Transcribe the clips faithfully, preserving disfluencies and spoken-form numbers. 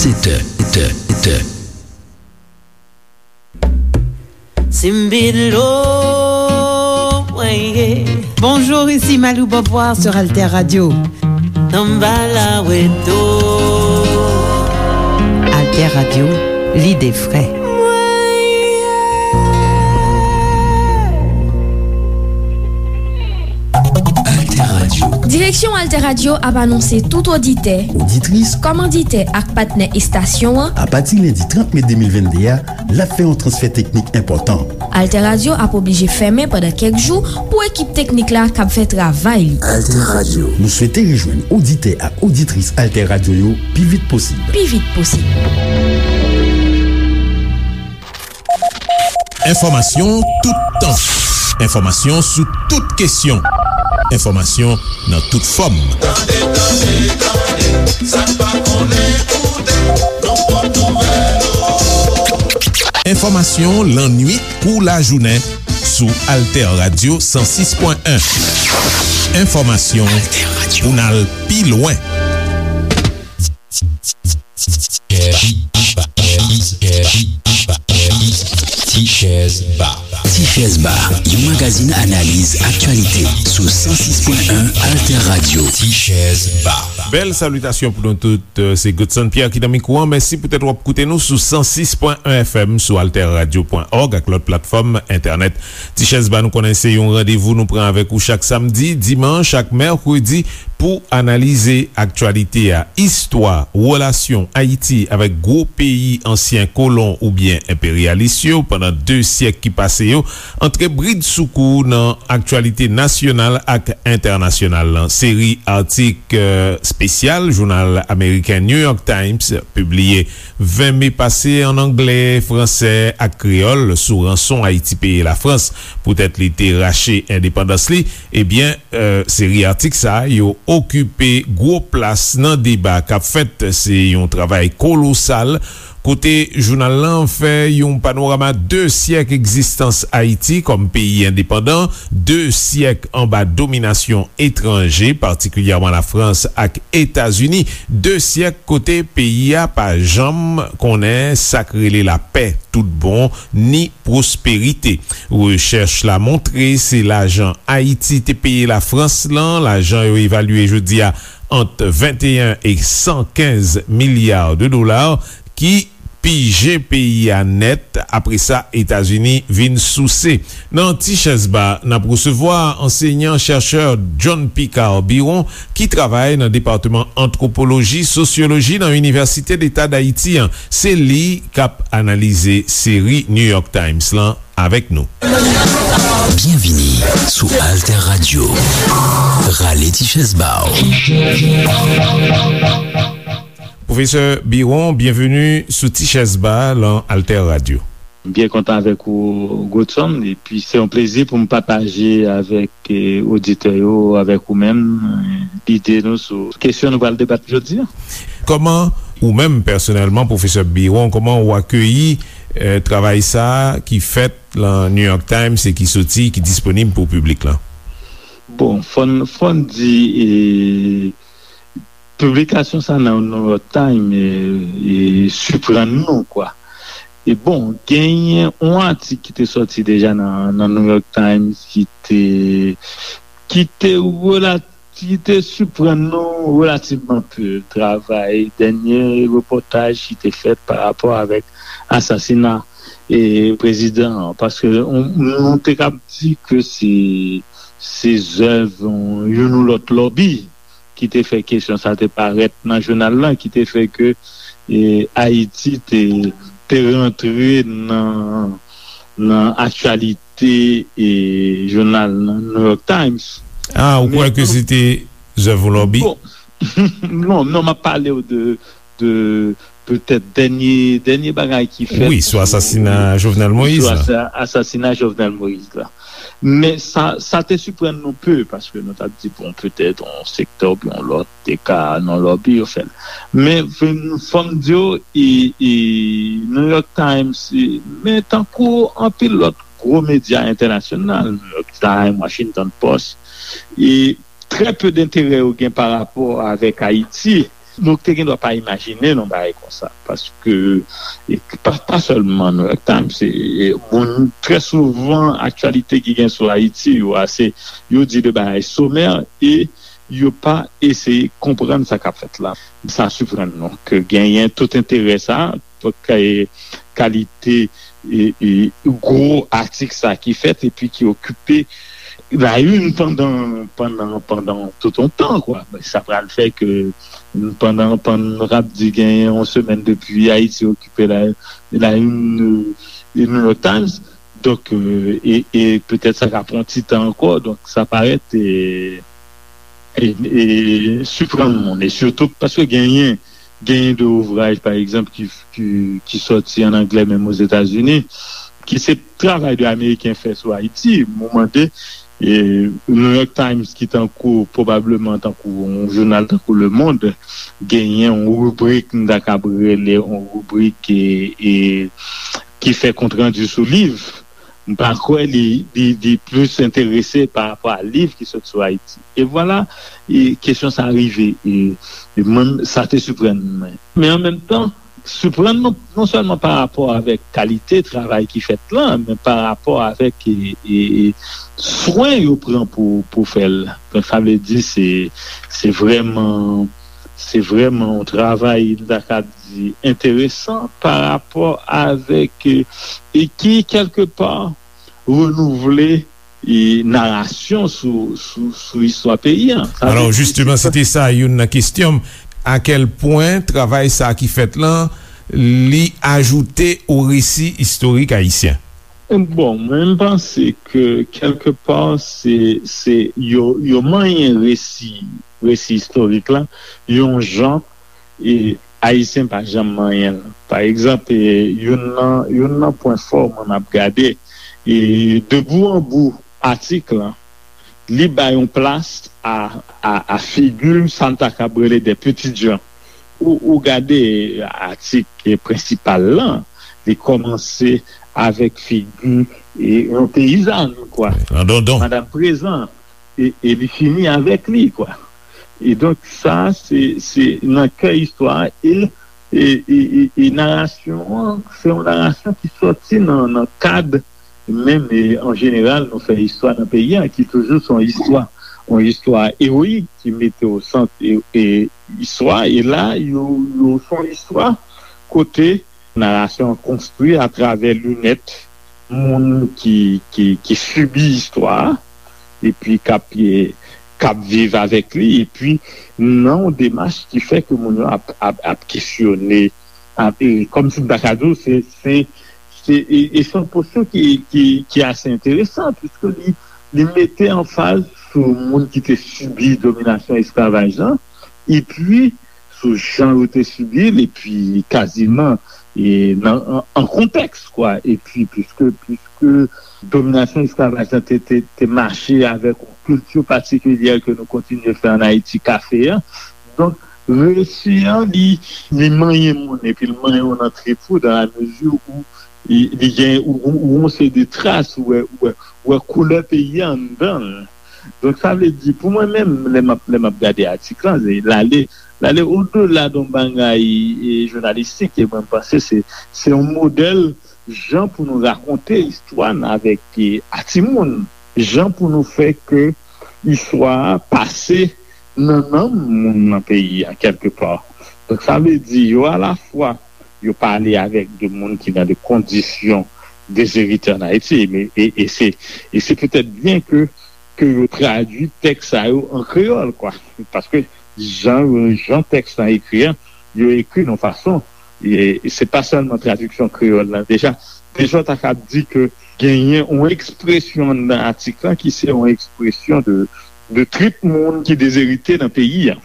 Sèt è, sèt è, sèt è. Simbilo, mwen ye. Bonjour, ici Malou Beauvoir sur Alter Radio. Tanbala weto. Alter Radio, lide frè. Mwen ye. Alter Radio. Direksyon Alter Radio ap anonse tout oditè, oditris, kòmanditè ak patnè estasyon an, apati lendi trant me de mil venn de a, l ap fè yon transfè teknik enpòtan. Alter Radio ap oblije fèmen pandan kèk jou pou ekip teknik la kab fè travay li. Alter Radio. Nou swete rejwenn oditè ak oditris Alter Radio yo pi vit posib. Pi vit posib. Enfòmasyon toutan. Enfòmasyon sou tout kesyon. Enfòmasyon nan tout fòm. Tande, tande, tande, sa n pa konnen koute, nan pòt nouvèl. Enfòmasyon lannuit kou lajounen sou Alter Radio san sis pwen en. Enfòmasyon pou n al pi lwen. Ti Chèz Ba. Ti Chèz Ba, yon magazin analiz aktyalite sou san sis pwen en Alter Radio. Ti Chèz Ba. Bèl salitasyon pou nou tout. Se Godson Pierre ki nan mikwo an. Mèsi poutèt w ap koute nou sou san sis pwen en F M, sou alter radio pwen org ak lòt platfòm entènèt. Ti Chèz Ba, nou konnen se yon randevou nou pran avèk ou chak samdi, dimanch ak mèkredi pou analize aktyalite a, istwa, relasyon Ayiti avèk gwo peyi ansyen kolon oubyen enperyalis yo pandan de syèk ki pase yo, antre bridsoukou nan aktyalite nasyonal ak entènasyonal lan. Seri atik, eh, espesyal jounal ameriken New York Times pibliye ven me pase ann anglè, fransè ak kreyòl sou ranson Ayiti peye Lafrans poutèt li te rache endepandans li, ebyen, eh, seri atik sa a, yo okipe gwo plas nan deba k ap fèt. Se yon travay kolosal, kote jounal lan fè yon panorama de syèk egzistans Ayiti kòm peyi endepandan, de syèk anba dominasyon etranje, patikilyèman Lafrans ak Etazini, de syèk kote peyi a pa janm konnen sa k rele lapè tout bon, ni pwosperite. Rechèch la montre se lajan Ayiti te peye Lafrans lan, lajan yo evalye jodi a ant venteyen e san kenz milya de dola, ki pije peyi a nèt. Apre sa, Etazini vin souse. Nan Ti Chèz Ba, n ap resevwa ansenyan chèchè John Picard Biron, ki travay nan Depatman Antwopoloji, Sosyoloji nan Inivèsite Deta d Ayiti an. Se li k ap analize seri New York Times lan avèk nou. Byenvini sou Alter Radio. Rale ti chèz ba w. Pwofesè Biron, byenveni sou Ti Chèz Ba lan Alter Radio. M byen kontan avèk ou, Godson, epi se yon plezi pou m pataje avèk, eh, oditè yo, avèk ou menm, eh, lide nou sou kesyon nou pral debat jodi a. Kòman ou menm, pèsonèlman, pwofesè Biron, kòman ou akeyi, eh, travay sa a ki fèt lan New York Times e ki soti, ki disponib pou piblik lan? Bon, fò n, fò n di, eh, piblikasyon sa nan New York Times, e, e, siprann nou, kwa. E bon, genyen yon atik ki te sòti deja nan, nan New York Times ki te, ki te rela-, ki te siprann nou relativman pe. Travay, dènye repòtaj ki te fèt pa rapò avèk asasina, e, prezidan an. Paske nou, nou te kab di ke se, se zèv, e, youn ou lòt lòbi ki te fè kesyon sa te parèt nan jounal lan, ki te fè ke, e, Ayiti te, te rantre nan, nan aktyalite, e, jounal nan New York Times. Ah, ou kwè ke se te zèv yon lòbi? Bon, non, non, m ap pale w de, de petèt dènye, dènye bagay ki fèt. Wi, sou asasina Jovenel Moïse la. Sou asa-, asasina Jovenel Moïse la. Men sa, sa te siprann nou pe, paske nou t ap di, bon, petèt yon sektè oubyen yon lòt te ka nan lòbi yo fè l. Men fò m di w, e, e, New York Times, e, men tankou anpil lòt gwo medya entènasyonal, New York Times, Washington Post, e trè pe denterè yo gen pa rapò avèk Ayiti. Nou te gen dwa pa imajine yon bagay konsa, paske e pa, pa sèlman New York Times, e, e moun, trè souvan aktyalite ki gen sou Ayiti yo ase, yo di de bagay somè e yo pa eseye konprann sa k ap fèt la. Sa siprann nou ke genyen tout enterè sa, tout ka-, kalite e, e gwo atik sa ki fèt epi ki okipe la une pandan, pandan, pandan tout yon tan, kwa. Sa pral fè ke pandan, pandan n ap di genyen yon semèn depi Ayiti okipe la, la une, e New York Times, donk, e, e, e petèt sa ka pran ti tan ankò, donk sa parèt e, e, e siprann moun, e sitou paske genyen, genyen de ouvraj, pa egzanp, ki, ki, ki sòti an anglè, menm Ozetazini, ki se travay de Ameriken fè sou Ayiti. Mwen mande, e, New York Times, ki tankou, pwobableman tankou yon jounal tankou Le Monde, genyen yon ribrik, m ta kab rele yon ribrik, e, e, ki fè kontrandi sou liv. M pa kwè li, li, li plis enterese pa rapò a liv ki sot sou Ayiti. E vwala, e kesyon sa a rive. E, e mwen, sa te siprann mwen. Men an menm tan, siprann mwen non sèlman pa rapò avèk kalite travay ki fèt la, men pa rapò avèk, e, e, e swen yo pran pou, pou fè l. Donk, sa vle di se, se vrèman, se vrèman yon travay, m ta ka di, enteresan pa rapò avèk, e, e ki, kèlkepa, renouvle, e, narasyon sou, sou, sou istwa peyi a. Sa vle Alò, di, jisteman, se te sa youn nan kesyon m. A kèl pwen travay sa a ki fèt lan, li ajoute o resi istorik ayisyen? Bon, mwen, m panse ke kèlkepa, se, se yo, yo manyen resi, resi istorik la, yon jan, e Ayisyen pa janm manyen l. Pa egzanp, e, youn nan, youn nan pwen fò mwen m ap gade, e, de bout an bout atik lan, li bay yon plas a, a, a figi sa n ta kab rele de pitit jan. Ou, ou gade atik prensipal lan, li kòmanse avèk figi, e, yon peyizàn, kwa. An dondon. Madanm Prezan, e, e li fini avèk li, kwa. E donk, sa, se, se nan kè istwa a, e, e, e, e, e narasyon an, se yon narasyon ki sòti nan, nan kad, menm, e, an jeneral, nou fè istwa nan peyi a, ki toujou se yon istwa, yon istwa ewoyik, ki mete o sant, e, e, istwa, e la, yo, yo, se yon istwa kote narasyon an konstwi atravè linèt moun ki, ki, ki sibi istwa a, epi k ap, e, k ap viv avèk li, epi nan yon demach ki fè ke moun yo ap, ap, ap kesyone, ap, e, kòmsi m ta ka di w, se, se, se, e, e se yon posyon ki, ki, ki ase enteresan, piske li, li mete anfaz sou moun ki te sibi dominasyon esklavaj lan, epi sou jan yo te sibi l, epi kaziman, e, nan, an, an kontèks, kwa. Epi, piske, piske dominasyon esklavaj lan te, te, te mache avèk yon kilti patikilyè ke nou kontinye fè ann Ayiti, kafe a. Donk, resi an, li, li manyen moun, epi l manyen w nan trip ou, dans la mesure où li, li gen, ou, ou, ou yon seri de tras, ou wè, ou wè, ou wè koulè peyi a anndan l. Donk, sa vle di, pou mwen menm, lè m ap, lè m ap gade atik lan, se, l ale, l ale odela de yon bagay, e, jounalistik, e mwen, m panse se, se yon modèl jan pou nou rakonte istwa n avèk, e, a timoun, jan pou nou fè ke istwa a pase nan nanm moun nan peyi a, kèlkepa. Donk, sa vle di, yo alafwa, yo pale avèk de moun ki nan de kondisyon dezerite ann Ayiti, e, e, e se, e se petèt byen ke, ke yo tradui tèks sa yo an kreyòl, kwa. Paske jan, jan tèks lan ekri an, yo ekri nan fason, e, e se pa sèlman tradiksyon kreyòl lan, deja, deja w ta kab di ke genyen yon ekspresyon anndan atik lan ki se yon ekspresyon de, de trip moun ki dezerite nan peyi a.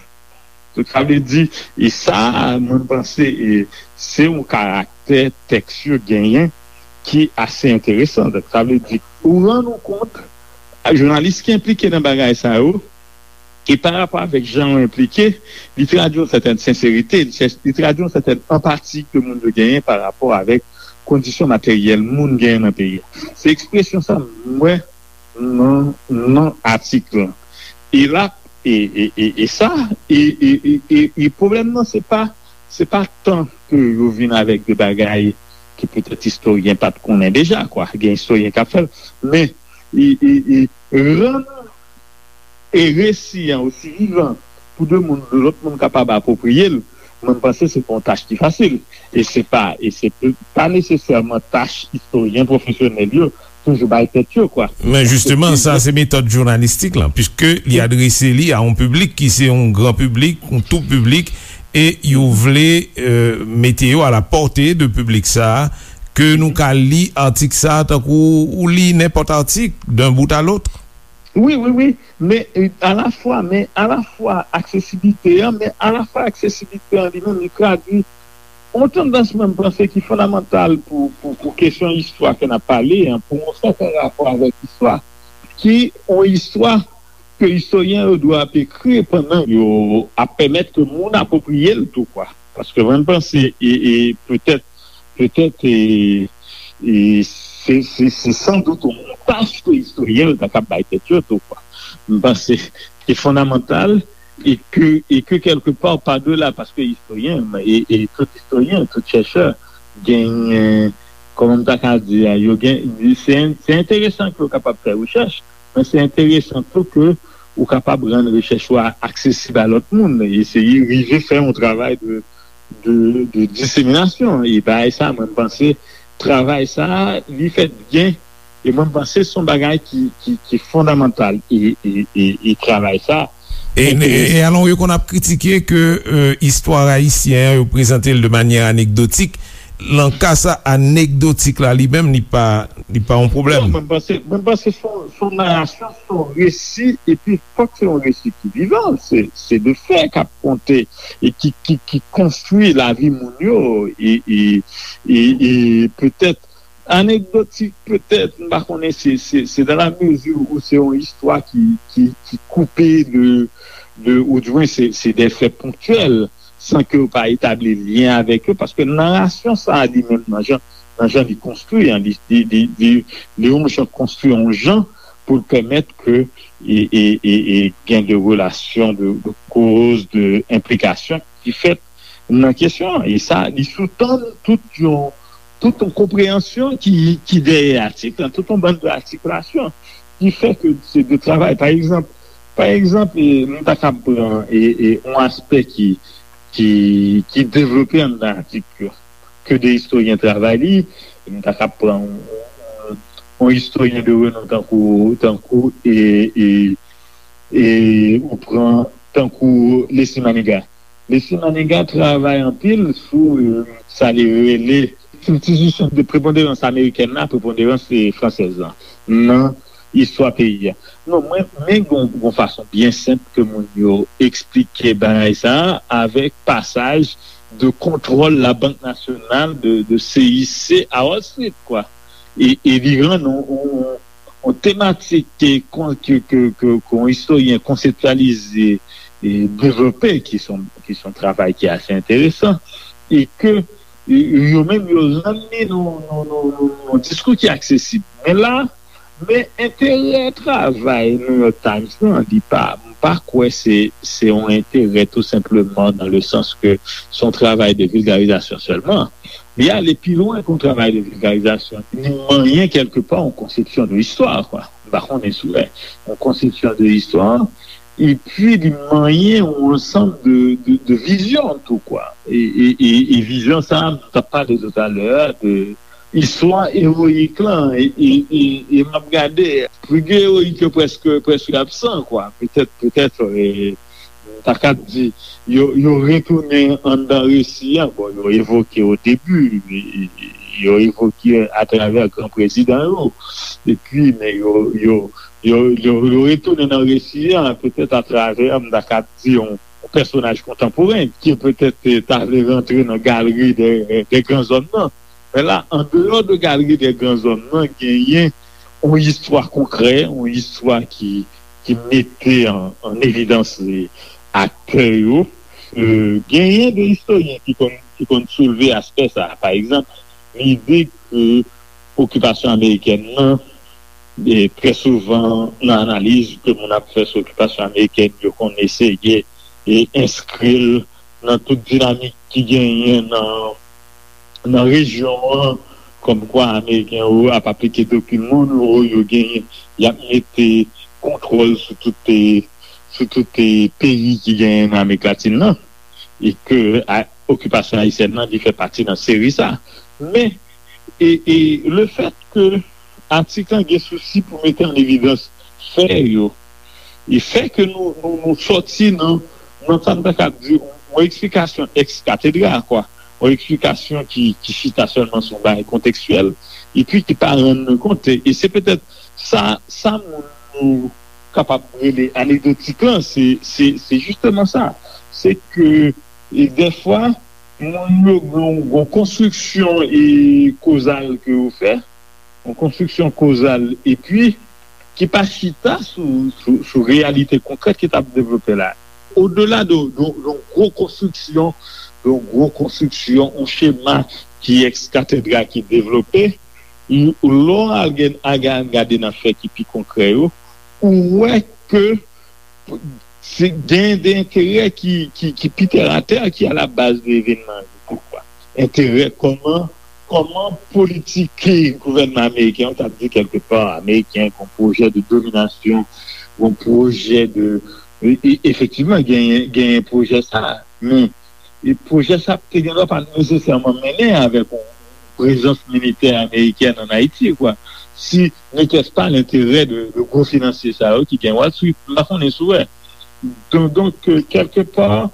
Donk, sa vle di, e sa, mwen, m panse, e, se yon karaktè tèks yo genyen ki ase enteresan. Donk, sa vle di, ou rann ou kont, jounalis ki enplike nan bagay sa yo, e pa rapò avèk jan yo enplike, li tradui yon sètèn senserite, li chèche, li tradui yon sètèn anpati ke moun yo genyen pa rapò avèk kondisyon materyèl moun genyen nan peyi a. Se ekspresyon sa m wè nan, nan atik lan. E l ap, E, e, e, e sa, e, e, e, e, e pwoblèm nan, se pa, se pa tan ke yo vin avèk de bagay ki petèt istoryen pa t konnen deja, kwa. Gen istoryen k ap fè l, men e, e, e, rann e resi an osi vivan pou de moun, de lòt moun kapab apwopriye l, mwen, m panse se pa yon tach ki fasil. E se pa, e se p- pa nesesèman tach istoryen pwofesyonèl yo toujou bay tèt yo, kwa. Men jisteman, sa se metòd jounalistik lan, piske li adrese li a yon piblik ki se yon gran piblik, yon tou piblik, e yo vle euh, mete yo a la pòte de piblik sa a, ke nou ka li atik sa a tankou ou li nenpòt atik, d'un bout à l'autre. Wi, wi, wi. Men euh, alafwa, men alafwa aksesibilite an, men alafwa aksesibilite an li menm, li tradui yon tandans, mwen, m panse ki fondamantal pou, pou, pou kesyon istwa ke n ap pale an, pou yon sèten rapò avèk istwa, ki yon istwa ke istoryen yo dwe ap ekri pandan yo ap pèmèt ke moun apwopriye l tou, kwa. Paske mwen, m panse, e, e petèt, petèt, e, e se, se, se san dout yon tach ke istoryen yo ta kab bay tèt yo tou, kwa. M panse ki fondamantal e ke, e ke kèlke pa, pa dela, paske istoryen, e, e tout istoryen, tout chèchè, genyen, kòman m ta ka di a, yo gen, se, se enteresan ke yo kapab fè rechèch, men se enteresan tou ke ou kapab rann rechèch ou a aksesib a lòt moun, eseye rive fè yon travay de, de, de diseminasyon. E bagay sa, mwen, m panse, travay sa, li fèt byen, e mwen, m panse, se yon bagay ki, ki, ki fondamantal. E, e, e, e travay sa, E, e, e alon, yo konn ap kritike ke euh, istwa ayisyen an, yo prezante l de manyè anekdotik. Nan ka sa, anekdotik la li menm, li pa, li pa yon pwoblèm. Non, mwen panse, mwen panse se yon, se yon narasyon, se yon resi, epi fòk se yon resi ki vivan, se, se de fè k ap konte e ki, ki, ki konstwi lavi moun yo, e, e, e, e petèt anekdotik, petèt, m pa konnen, se, se, se dans la mesure où se yon istwa ki, ki, ki koupe de, de, ou di mwen se, se de fè ponktyèl, san ke yo pa etabli lyen avèk yo, paske narasyon sa a li menm nan jan, nan jan li konstwi an, li, li, li, li, li yon jan konstwi yon jan pou l pèmèt ke e, e, e, e gen de relasyon de, de koz, de enplikasyon ki fèt nan kesyon an. E sa, li soutann tout yon, tout yon konpreyansyon ki, ki dèyè atik lan, tout yon bann de atikilasyon ki fè ke se de travay. Pa egzanp, pa egzanp, e, nou ta kab pran e, e, yon aspè ki, ki, ki devlope anndan atik yo, ke de istoryen travay li, nou ta kab pran yon, yon, yon istoryen de renon tankou, tankou e, e, e ou pran tankou Leslie Manigat. Leslie Manigat travay anpil sou euh, sa li rele kiltirism de preponderans amerikèn la, preponderans fransèz la nan istwa peyi a. Non, mwen, men gon, gon fason byen senp ke moun yo eksplike bagay sa a avèk pasaj de kontwòl la Bank Nasyonal de, de C I C a Wall Street, kwa. E, e li rann yon, yon, yon tematik ke, ke, ke, ke, ke yon istoryen konseptyalize e devlope, ki se yon, ki se yon travay ki ase enteresan, e ke e, yo menm yo rann li nan yon diskou ki aksesib. Men la, men enterè travay New York Times lan, li pa, m pa kwè se, se yon enterè tou senpleman dans le sens que se yon travay de vilgarizasyon sèlman. Li ale pi lwen ke yon travay de vilgarizasyon. Li manyen kèlkepa yon konsepsyon de istwa, kwa. M pa konnen si w wè. Yon konsepsyon de istwa, epi li manyen yon ansanm de, de, de vizyon tou, kwa. E, e, e, e vizyon sa a, m t ap pale toutalè a de istwa ewoyik lan, e, e, e, e m ap gade, figi ewoyik yo prèske, prèske absan, kwa. Petèt, petèt, e, m ta kab di, yo, yo retounen anndan resi a, bon, yo evoke o debi, e, e, yo evoke atravè gran prezidan yo, epi, men yo, yo, yo, yo, yo retounen nan resi a, petèt atravè, m ta kab di, yon, yon pèsonaj kontanporen, ki petèt eh, ta vle rantre nan galri de, de gran zòm nan. Men la, andeyò de galri de gran zòm nan, genyen yon istwa konkrè, yon istwa ki, ki mete an, an evidans eh, aktè yo. Eh, genyen de istoryen ki konn, ki konn soulve aspè sa. Pa egzanp, lide ke okipasyon amerikèn nan E trè souvan, nan analiz ke moun ap fè sou okipasyon amerikèn, yo konn eseye e enskri l nan tout dinamik ki genyen nan, nan rejyon an, kòmkwa Ameriken yo ap aplike doktrin Monroe, yo genyen, y ap mete kontwòl sou tout, sou tout peyi ki genyen nan Amerik Latin nan, e ke a, okipasyon ayisyèn nan, li fè pati nan seri sa. Men, e, e lefèt ke atik lan gen sousi pou mete an evidans fè yo, e fè ke nou, nou, nou sòti nan, nan sa n ta kab di yon eksplikasyon ex cathedra, kwa, yon eksplikasyon ki, ki chita sèlman sou yon bagay kontekstyèl, epi ki pa rann nou kont. E se petèt sa, sa moun yo kapab rele anekdotik lan, se, se, se jisteman sa. Se ke, e dèfwa, moun yo gen yon konstriksyon e kozal ke yo fè, yon konstriksyon kozal, epi ki pa chita sou, sou, sou reyalite konkrèt ki t ap devlope la. Odela de, de, de yon gwo konstriksyon, de yon gwo konstriksyon, yon chema ki ex cathedra ki devlope, lè w al gen, al gade nan fè ki pi konkrè yo, ou wè ke se gen de enterè ki, ki, ki pi tèratè, ki a la baz de evènman yo tou, kwa. Enterè kòman, kòman politik gouvènman ameriken an, ta di kèlkepa, ameriken, yon pwojè de dominasyon, yon pwojè de, e, e, efektivman, genyen, genyen pwojè sa, men e pwojè sa te gen dwa pa nesesèman mennen avèk yon prezans militè amerikèn ann Ayiti, kwa. Si n'était-ce pas l'intérêt de, de gwo finansye sa yo ki gen Wall Street, m pa konnen si w wè. Donk, donk, euh, kèlkepa,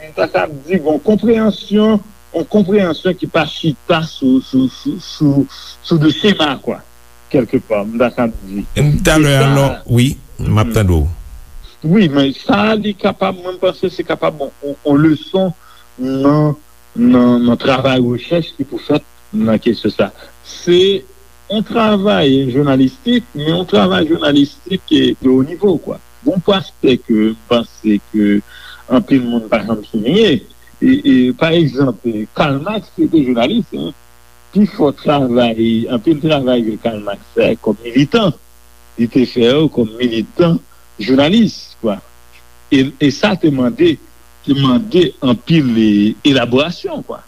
m ta kab di, bon, konpreyansyon, yon konpreyansyon ki pa chita sou, sou, sou, sou, sou de chema, kwa. Kèlkepa, m ta kab di. Talè, alò, wi, m ap tande w. Wi, men sa, li kapab, mwen, m panse se kapab yon, yon, yon leson nan, nan, nan travay rechèch ki pou fèt nan kesyon sa. Se yon travay jounalistik, men yon travay jounalistik de wo nivo, kwa. Gon pastè ke m panse ke anpil moun pa janm souliye, e, e, pa egzanp, Karl Marx te jounalis, en. Pifò travay, anpil travay ke Karl Marx fè kòm militan, li te fè yo kòm militan jounalis, kwa. E, e sa te mande, te mande anpil, e, elaborasyon, kwa.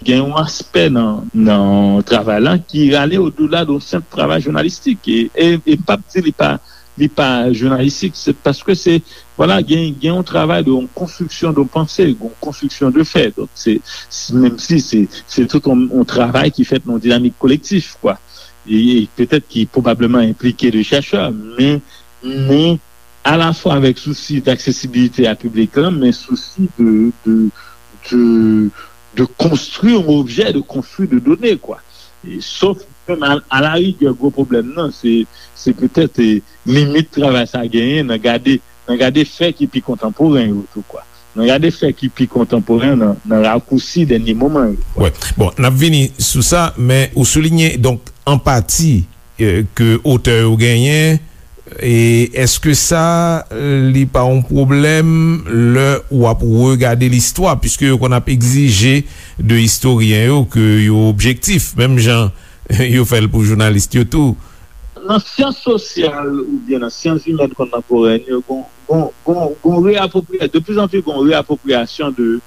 Gen yon aspè nan, nan travay la ki ale odela de yon senp travay jounalistik. E, e, e m p ap di li pa, li pa jounalistik, se paske se, vwala, gen, gen yon travay de yon konstriksyon de panse, yon konstriksyon de fè. Donk, se, se, menm si se, se tout yon, yon travay ki fèt nan yon dinamik kolektif, kwa. E, e petèt ki pwobableman enplike de chèchè, men, men alafwa avèk sousi d'aksesibilite a piblik lan, men sousi de, de, de, de konstwi yon objè, de konstwi de done, kwa. E, sof, menm a, a la rigè, gwo pwoblèm nan, se, se petèt, e, limit travay sa genyen nan gade, nan gade fè ki pi kontanporen yo tou, kwa. Nan gade fè ki pi kontanporen nan, nan rakousi dènye moman yo, kwa. Wè. Bon, n ap vini sou sa, men ou souliye, donk, anpati, e, ke otè yo genyen, e èske sa, e, li pa yon pwoblèm lè w ap regade listwa, piske yo konn ap egzije de istoryen yo ke yo objektif, menm jan yo fè l pou jounalis yo tou? Nan syans sosyal oubyen nan syans imèn kontanporèn yo, gon, gon, gon, gon reapwopriya-, de plus en plus gon reapwopriyasyon de,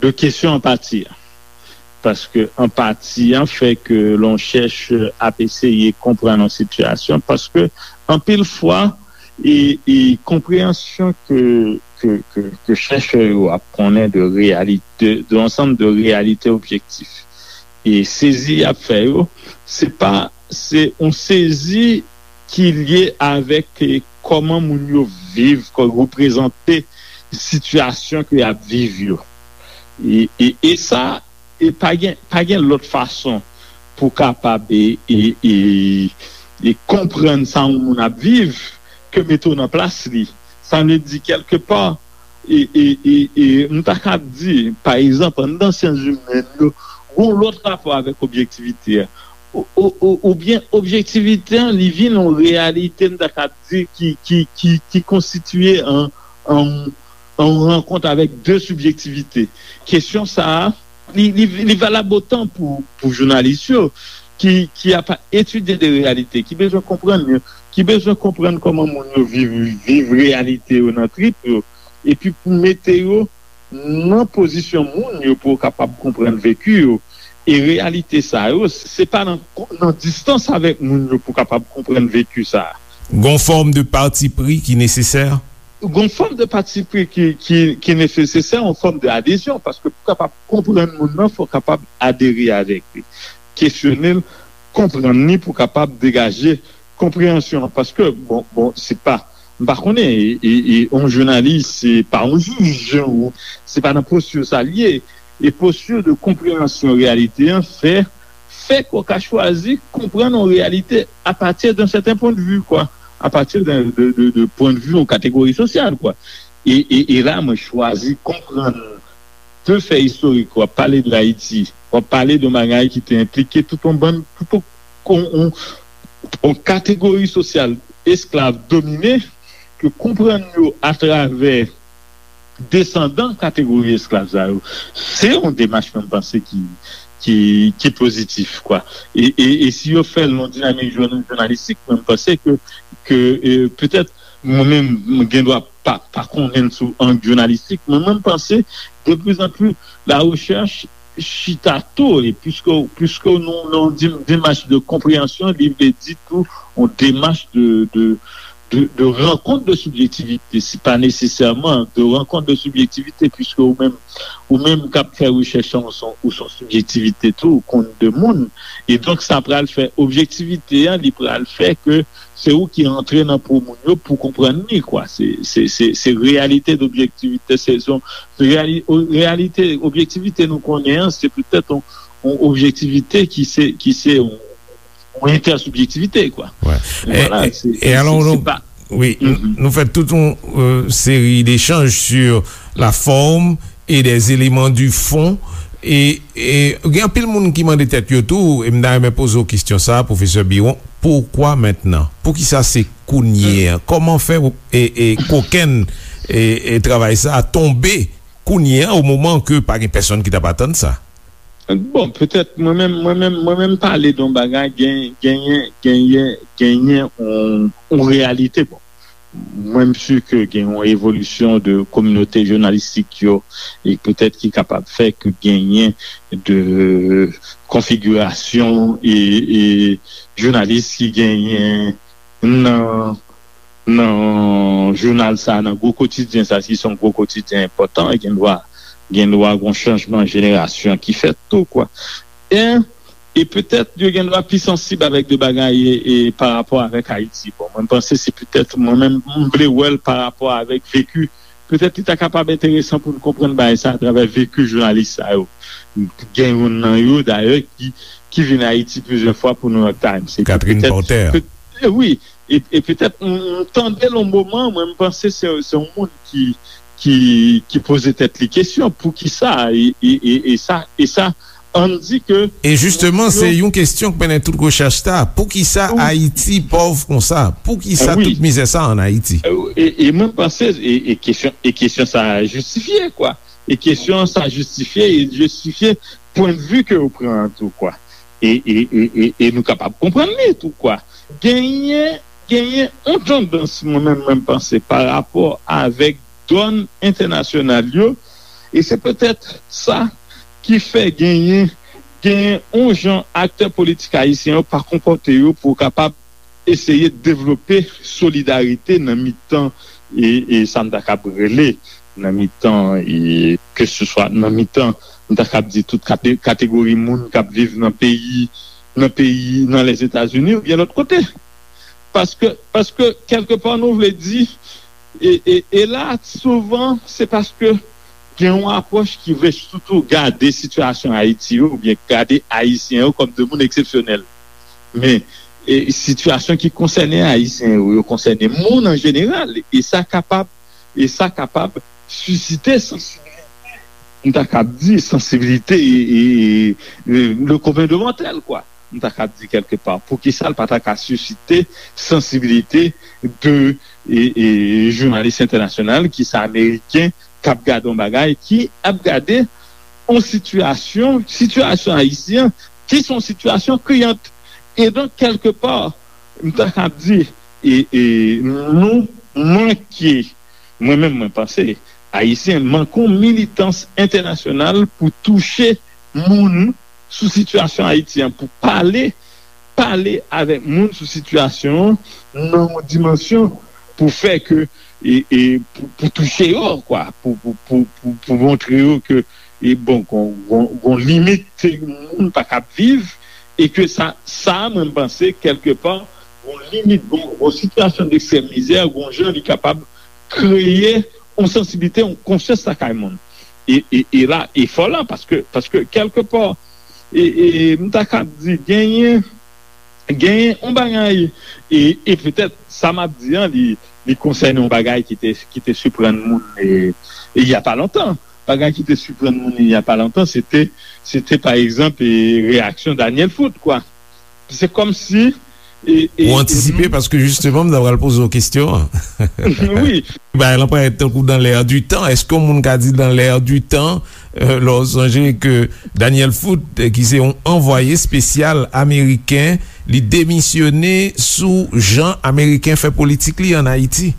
de kesyon anpati a. Paske anpati an fè ke lè yon chèchè ap eseye konprann yon sitiyasyon, paske anpil fwa, e, e konpreyansyon ke, ke, ke, ke chèchè yo ap konnen de reyalite, de ansanm de reyalite objektif. E sezi y ap fè yo, se pa, se yon sezi ki lye avèk, e, kòman moun yo viv, kò-, reprezante sitiyasyon ke y ap viv yo. E, e, e sa, e pa gen, pa gen lòt fason pou kapab, e, e, e, e konprann sa yon moun ap viv ke mete w nan plas li. Sa vle di, kèlkepa, e, e, e, e, m ta kab di, pa egzanp, anndan syans imèn yo, gon lòt rapò avèk objektivite a. Ou, ou, ou, oubyen objektivite an, li vin yon reyalite, m ta kab di, ki, ki, ki, ki konstitye an, an, an rankont avèk de sibjektivite. Kesyon sa a, li, li, li valab otan pou, pou jounalis yo, ki, ki ap etidye de reyalite, ki bezwen konprann yo, ki bezwen konprann kòman moun yo viv, viv reyalite yo nan trip yo, epi pou mete yo nan pozisyon moun yo pou yo kapab konprann veki yo, e reyalite sa yo, se pa nan, nan distans avèk moun yo pou kapab konprann veki sa a. Gon fòm de patipri ki nesesè? Gon fòm de patipri ki, ki, ki nesesè, yon fòm de adezyon, paske pou kapab konprann moun nan, fò w kapab adere avèk li, kesyone l, konprann li pou kapab degaje konpreyansyon an. Paske, bon, bon, se pa, m pa konnen, e, e, e, yon jounalis, se pa yon jij, ou, se pa nan posti sa l ye. E posti de konpreyansyon reyalite an fè, fè ke w ka chwazi konprann yon reyalite apati de yon sèten pwennvi, kwa, apati de, de, de, de pwennvi yon kategori sosyal, kwa. E, e, e la, mwen chwazi konprann de fè istorik, w ap pale de Ayiti, w ap pale de yon bagay ki te enplike tout yon bann, tout yon, yon, yon, yon kategori sosyal esklav domine, ke konprann yo atravè desandan kategori esklav sa yo, se yon demach mwen panse ki, ki, ki pozitif, kwa. E, e, e si yo fè l nan dinamik jounan-, jounalistik, mwen panse ke, ke, e, petèt, mwen menm, mwen gen dwa pa, pa konnen sou ang jounalistik, men mwen panse, de plus en plus, la recherche chita tou, e puisque, puisque nou nan yon dim-, demach de konpreyansyon, li vle di tou yon demach de, de, de, de rankont de sibjektivite, se pa nesesèman de rankont de sibjektivite, puisque ou menm, ou menm k ap fè rechèch an, ou se yon, ou se yon sibjektivite tou, ou konn de moun, e donk sa pral fè objektivite an, li pral fè ke se ou ki antre nan po moun yo pou konprann li, kwa. Se, se, se, se reyalite d'objektivite, se, se yon reyali-, o-, reyalite, objektivite nou konnen an, se petèt yon, yon objektivite ki se, ki se yon, yon entèsibjektivite, kwa. Wè. E, vwala, e, se, e se, alò, se, nou, se pa wi, nou, mhm, nou fè tout yon, euh, seri d'echanj sur la forme et des éléments du fond. E, e gen anpil moun ki mande tèt yo tou, e m ta renmen poze w kesyon sa a, pwofesè Biron, poukwa mentnan? Poukisa se kounye a? Kòman fè, e, e kokenn, e, e travay sa a tonbe kounye a, o moman ke pa gen pèsonn ki t ap atann sa? Bon, petèt, mwen menm, mwen menm, mwen menm pale de yon bagay, gen, genyen, genyen, genyen yon, yon reyalite. Bon, mwen, m si ke gen yon evolisyon de kominote jounalistik yo, e petèt ki kapab fè ke genyen de konfigirasyon e, e jounalis ki genyen nan, nan jounal sa, nan gwo kotidyen sa, ki se yon gwo kotidyen enpòtan, e gen dwa, gen dwa gon chanjman jenerasyon ki fèt tou, kwa. E, e petèt, yo gen dwa pi sansib avèk de bagay e, e pa rapò avèk Ayiti. Bon, mwen, m panse se petèt, mwen menm, m vle wè l pa rapò avèk veki. Petèt, li ta kapab enteresan pou n konprann bagay sa atravè veki jounalis sa yo. Gen youn nan yo, dayè, ki, ki vin Ayiti plizyè fwa pou New York Times. Se Catherine petèt, Porter. Pe-, e wi, e, e petèt, m, m tande l yon moman, mwen, m panse se, se yon moun ki, ki, ki poze tèt li kesyon, poukisa, e, e, e, e sa, e sa, ann di ke... E jisteman, se yon kesyon k mennen tout rechèch sa. Poukisa Ayiti pòv konsa? Poukisa tout mizè sa ann Ayiti? E, e mwen panse, e, e kesyon, e kesyon sa jistifye, kwa. E kesyon sa jistifye, e jistifye pwennvi ke ou pran an tou, kwa. E, e, e, e, e nou kapab konprann li tou, kwa. Genyen, genyen yon tandans, mwen menm, mwen panse, pa rapò avèk dòn entènasyonal yo, e se petèt sa ki fè genyen, genyen yon jan aktè politik ayisyen yo pa konpòte yo pou kapab eseye devlope solidarite nan mitan, e, e sa m ta kab rele, nan mitan, e, keseswa nan mitan, m ta kab di tout kate-, kategori moun k ap viv nan peyi, nan peyi, nan Lèzetazini oubyen lòt kote. Paske, paske, kèlkepa, nou vle di, e, e, e la, souvan, se paske gen yon apwòch ki vle sitou gade sitiyasyon Ayiti yo, oubyen gade Ayisyen yo kòm de moun eksepsyonèl. Men, e, sitiyasyon ki konsène Ayisyen yo, yo konsène moun an jeneral, e sa kapab, e sa kapab sisite sansibilite, m ta kab di, sansibilite, e, e, e, le commun de mortel, kwa. M ta kab di kèlkepa, poukisa l pa ta ka sisite sansibilite de, e, e, jounalis entènasyonal, ki se ameriken, k ap gade yon bagay, ki ap gade yon sitiyasyon, sitiyasyon ayisyen, ki se yon sitiyasyon kriyant. E donk, kèlkepa, m ta kab di, e, e nou manke, mwen menm mwen panse, Ayisyen manke yon militans entènasyonal pou touche moun sou sitiyasyon Ayiti an, pou pale, pale avèk moun sou sitiyasyon an nan yon dimansyon pou fè ke, e, e, pou, pou touche yo, kwa, pou, pou, pou, pou, pou montre yo ke, e, bon, gon, gon, gon limit moun pa kab viv, e ke sa, sa, mwen, m panse, kèlkepa, gon limit, gon, gon sitiyasyon dekstrèm mizè, gon jan li kapab kreye yon sansiblite, yon konsyans lakay moun. E, e, e la, efò la, paske, paske kèlkepa, e, e, m ta kab di, genyen, genyen yon bagay, e, e petèt sa m ap di an, li, li konsène yon bagay ki te, ki te siprann moun, e, e y a pa lontan. Bagay ki te siprann moun, y a pa lontan, se te, se te, pa egzanp, e, reyaksyon Daniel Foot, kwa. Se kòmsi, e, e, Ou antisipe, paske jisteman, m ta pral poze w kesyon an. Wi. Bagay lan parèt tankou dans l'air du temps. Èske yon moun ka di dans l'air du temps, euh, lè w sonje ke Daniel Foot, euh, ki se yon anvwaye espesyal ameriken, li demisyone sou jan ameriken fè politik li ann Ayiti?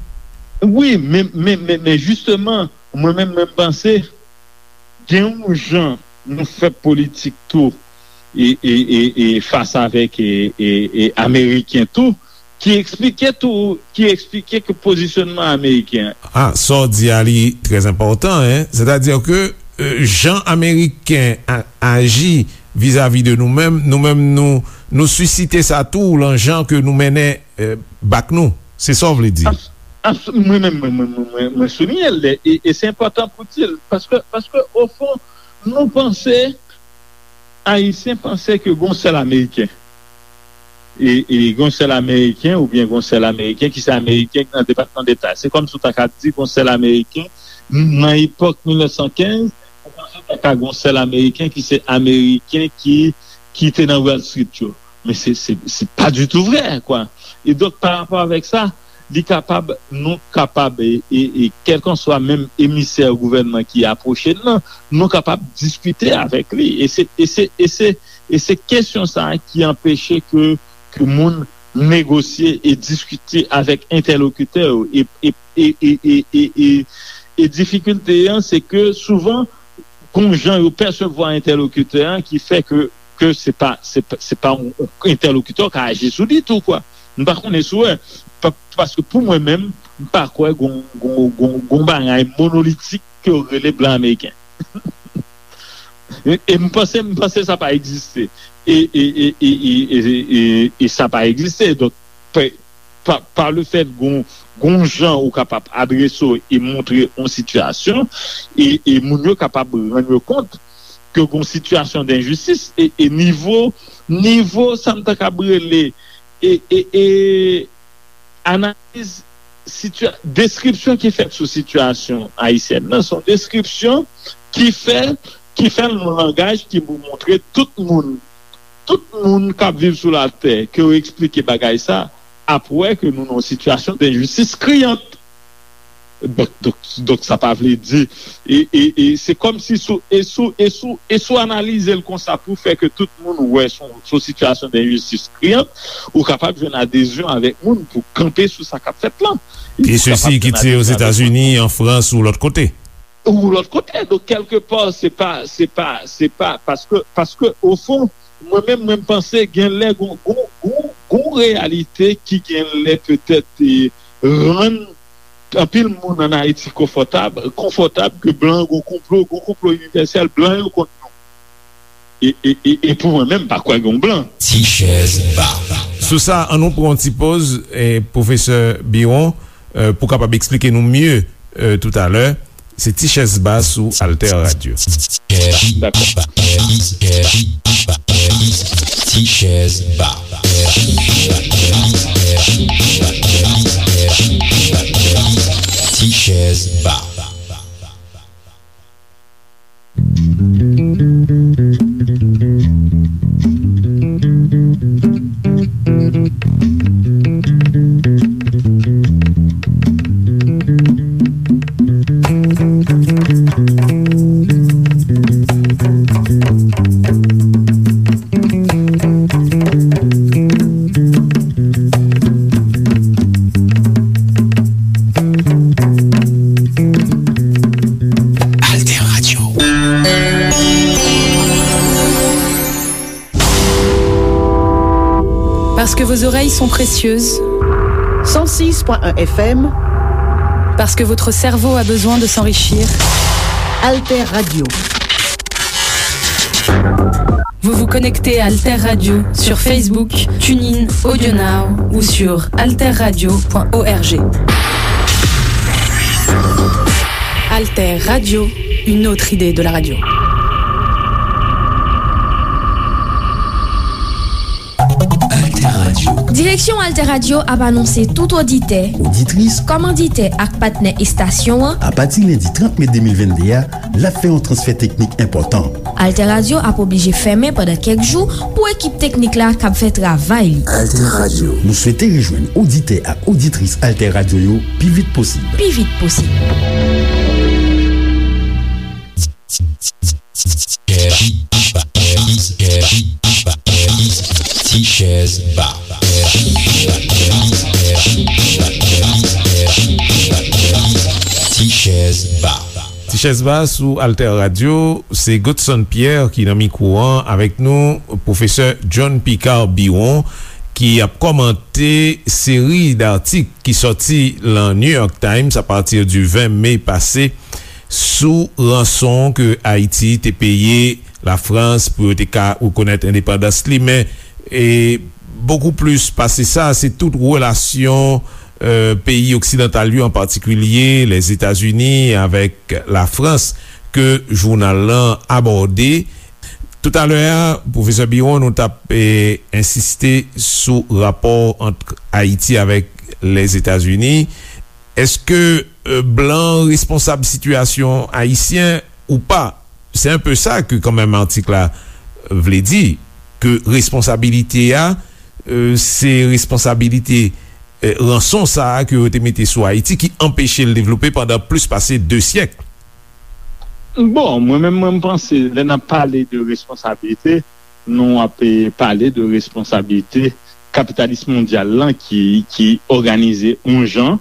Wi, men, men, men, men jisteman, mwen menm, mwen panse, gen yon jan nou fè politik tou, e, e, e, e fas avèk, e, e, e ameriken tou, ki eksplike tou, ki eksplike ke pozisyonman ameriken. Ah, sa w di a li trè enpòtan, en. Sètadi ke, euh, jan ameriken a-, aji vizavi de nou menm, nou menm nou, nou sisite sa tou lan jan ke nou mennen, euh, bak nou. Se sa w vle di? Abs-, abs-, mwen menm, mwen, mwen, mwen, mwen, mwen souliye l, e, e se enpòtan pou di l, paske, paske, ofon, nou panse, Ayisyen panse ke gon sèl Ameriken. E, e gon sèl Ameriken, oubyen gon sèl Ameriken, ki se Ameriken ki nan Depatman Deta. Se kòmsi w ta ka di gon sèl Ameriken, nan epòk mil nèf san kenz, ou panse w ta ka gon sèl Ameriken ki se Ameriken ki, ki te nan Wall Street yo. Men se, se, se pa ditou vrè, kwa. E donk, pa rapò avèk sa, li kapab, nou kapab, e, e, e kèlkanswa menm emisè gouvènman ki apwoche n nan, nou kapab diskite avèk li. E se, e se, e se, e se kesyon sa a ki anpeche ke, ke moun negosye e diskite avèk entèlokitè yo. E, e, e, e, e, e, e, e difikilte an, se ke souvan, gon jan yo pèsevwa entèlokitè an ki fè ke, ke se pa, se pa, se pa yon, yon entèlokitè w ka aji sou li tou, kwa. M pa konnen si w wè, pa-, paske pou mwen menm, m pa kwè gon, gon, gon, gon bagay monolitik ke yo rele blan ameriken. E, e m panse, m panse sa pa egziste. E, e, e sa pa egziste. Donk, pe-, pa, pa le fèt gon, gon jan ou kapab adrese w e montre yon sitiyasyon, e, e moun yo kapab rann yo kont ke gon sitiyasyon denjistis, e, e nivo, nivo sa m ta kab rele, e, e, e analiz sitiya-, deskripsyon ki fèt sou sitiyasyon ayisyèn nan, se yon deskripsyon ki fè, ki fè l nan yon langaj ki pou montre tout moun, tout moun k ap viv sou latè, ke yo eksplike bagay sa, ap wè ke nou nan yon sitiyasyon denjistis kriyant. Donk, donk, donk, sa pa vle di, e, e, e se kòmsi sou, e sou, e sou, e sou analize l konsa pou fè ke tout moun wè se yon, se yon sitiyasyon denjistis kriyant, ou kapab jwenn adezyon avèk moun pou kanpe sou sa k ap fèt lan. E sesi ki tire Ozetazini, an Frans ou lòt kote. Ou lòt kote. Donk, kèlkepa, se pa, se pa, se pa, paske, paske, ofon, mwen menm, mwen panse, gen lè, gon, gon, gon, gon reyalite ki gen lè petèt, e, rann anpil moun ann Ayiti konfòtab, konfòtab ke blan gon konplo, gon konplo inivèsèl, blan yo kont nou. E, e, e, e pou mwen menm, m pa kwè gon blan. Ti chèz ba. Sou sa, ann nou pran yon ti poz, e, pwofesè Biron, e, pou kapab eksplike nou mye, e, toutalè. Se Ti chèz ba sou Alter Radio. Dakò. Ti chèz ba. Ti chèz ba. Parce que vos oreilles sont précieuses. Cent six point un F M. Parce que votre cerveau a besoin de s'enrichir. Alter Radio. Vous vous connectez à Alter Radio sur Facebook, TuneIn, AudioNow ou sur alterradio point org. Alter Radio, une autre idée de la radio. Alter Radio. Direksyon Alter Radio ap anonse tout oditè, oditris, kòmanditè ak patnè estasyon an, apati lendi trant me de mil venn de a, l ap fè yon transfè teknik enpòtan. Alter Radio ap oblije fèmen pandan kèk jou pou ekip teknik la kab fè travay li. Alter Radio. Nou swete rejwenn oditè ak oditris Alter Radio yo pi vit posib. Pi vit posib. Ti chèz ba. Ti chèz ba. Ti chèz ba sou Alter Radio, se Godson Pierre ki nan mikwo an avèk nou, pwofesè John Picard Biron, ki ap kòmante seri d atik ki sòti lan New York Times apati di ven me pase sou ranson ke Ayiti te peye Lafrans pou yo te ka rekonèt endepandans li, men, e, bokou plis pase sa, se tout relasyon, e, peyi oksidantal yo, an patikilye Lèzetazini avèk Lafrans, ke jounal lan abòde. Toutalè a, pwofesè Biron, nou t ap, e, ensiste sou rapò ant Ayiti avèk Lèzetazini. Èske, e, blan responsab sitiyasyon ayisyen ou pa? Se enpe sa ke kanmenm atik la vle di, ke responsabilite a, e, se responsabilite, e, ranson sa a ke yo te mete sou Ayiti ki anpeche l devlope pandan plis pase de syèk. Bon, mwen menm, mwen, m panse, lè n ap pale de responsabilite, nou ap, e, pale de responsabilite kapitalis mondyal lan ki, ki òganize yon jan,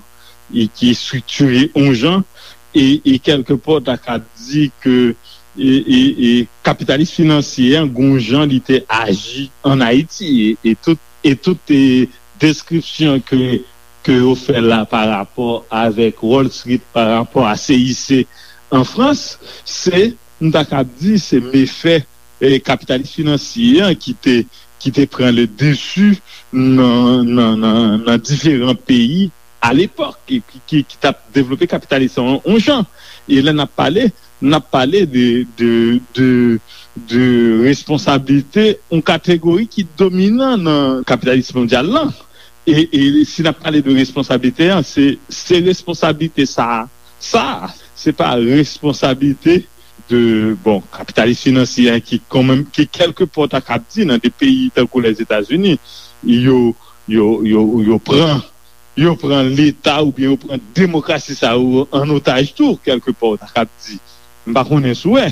e ki estriktire yon jan, e, e kèlkepò, ta ka di ke, e, e, e kapitalis finansye an, gon jan li te aji ann Ayiti, e, e tout, e tout, e, deskripsyon ke, ke yo fè la pa rapò avèk Wall Street, pa rapò a C I C an Frans, se, m ta kab di, se mefè, e, kapitalis finansye an ki te, ki te pran le dessus nan, nan, nan, nan diferan peyi alepòk, e ki, ki, ki t ap devlope kapitalis lan yon jan. E lè n ap pale, n ap pale de, de, de, de responsablite yon kategori ki dominan nan kapitalis mondyal lan. E, e si n ap pale de responsablite an, se, se responsablite sa, sa, se pa responsablite de, bon, kapitalis finansye an ki kanmenm, ki kèlkepò ta kab di nan de peyi tankou Lèzetazini, yo, yo, yo, yo pran, yo pran Leta oubyen yo pran demokrasi sa yo an otaj tou, kèlkepò, ta kab di. M pa konnen si w wè.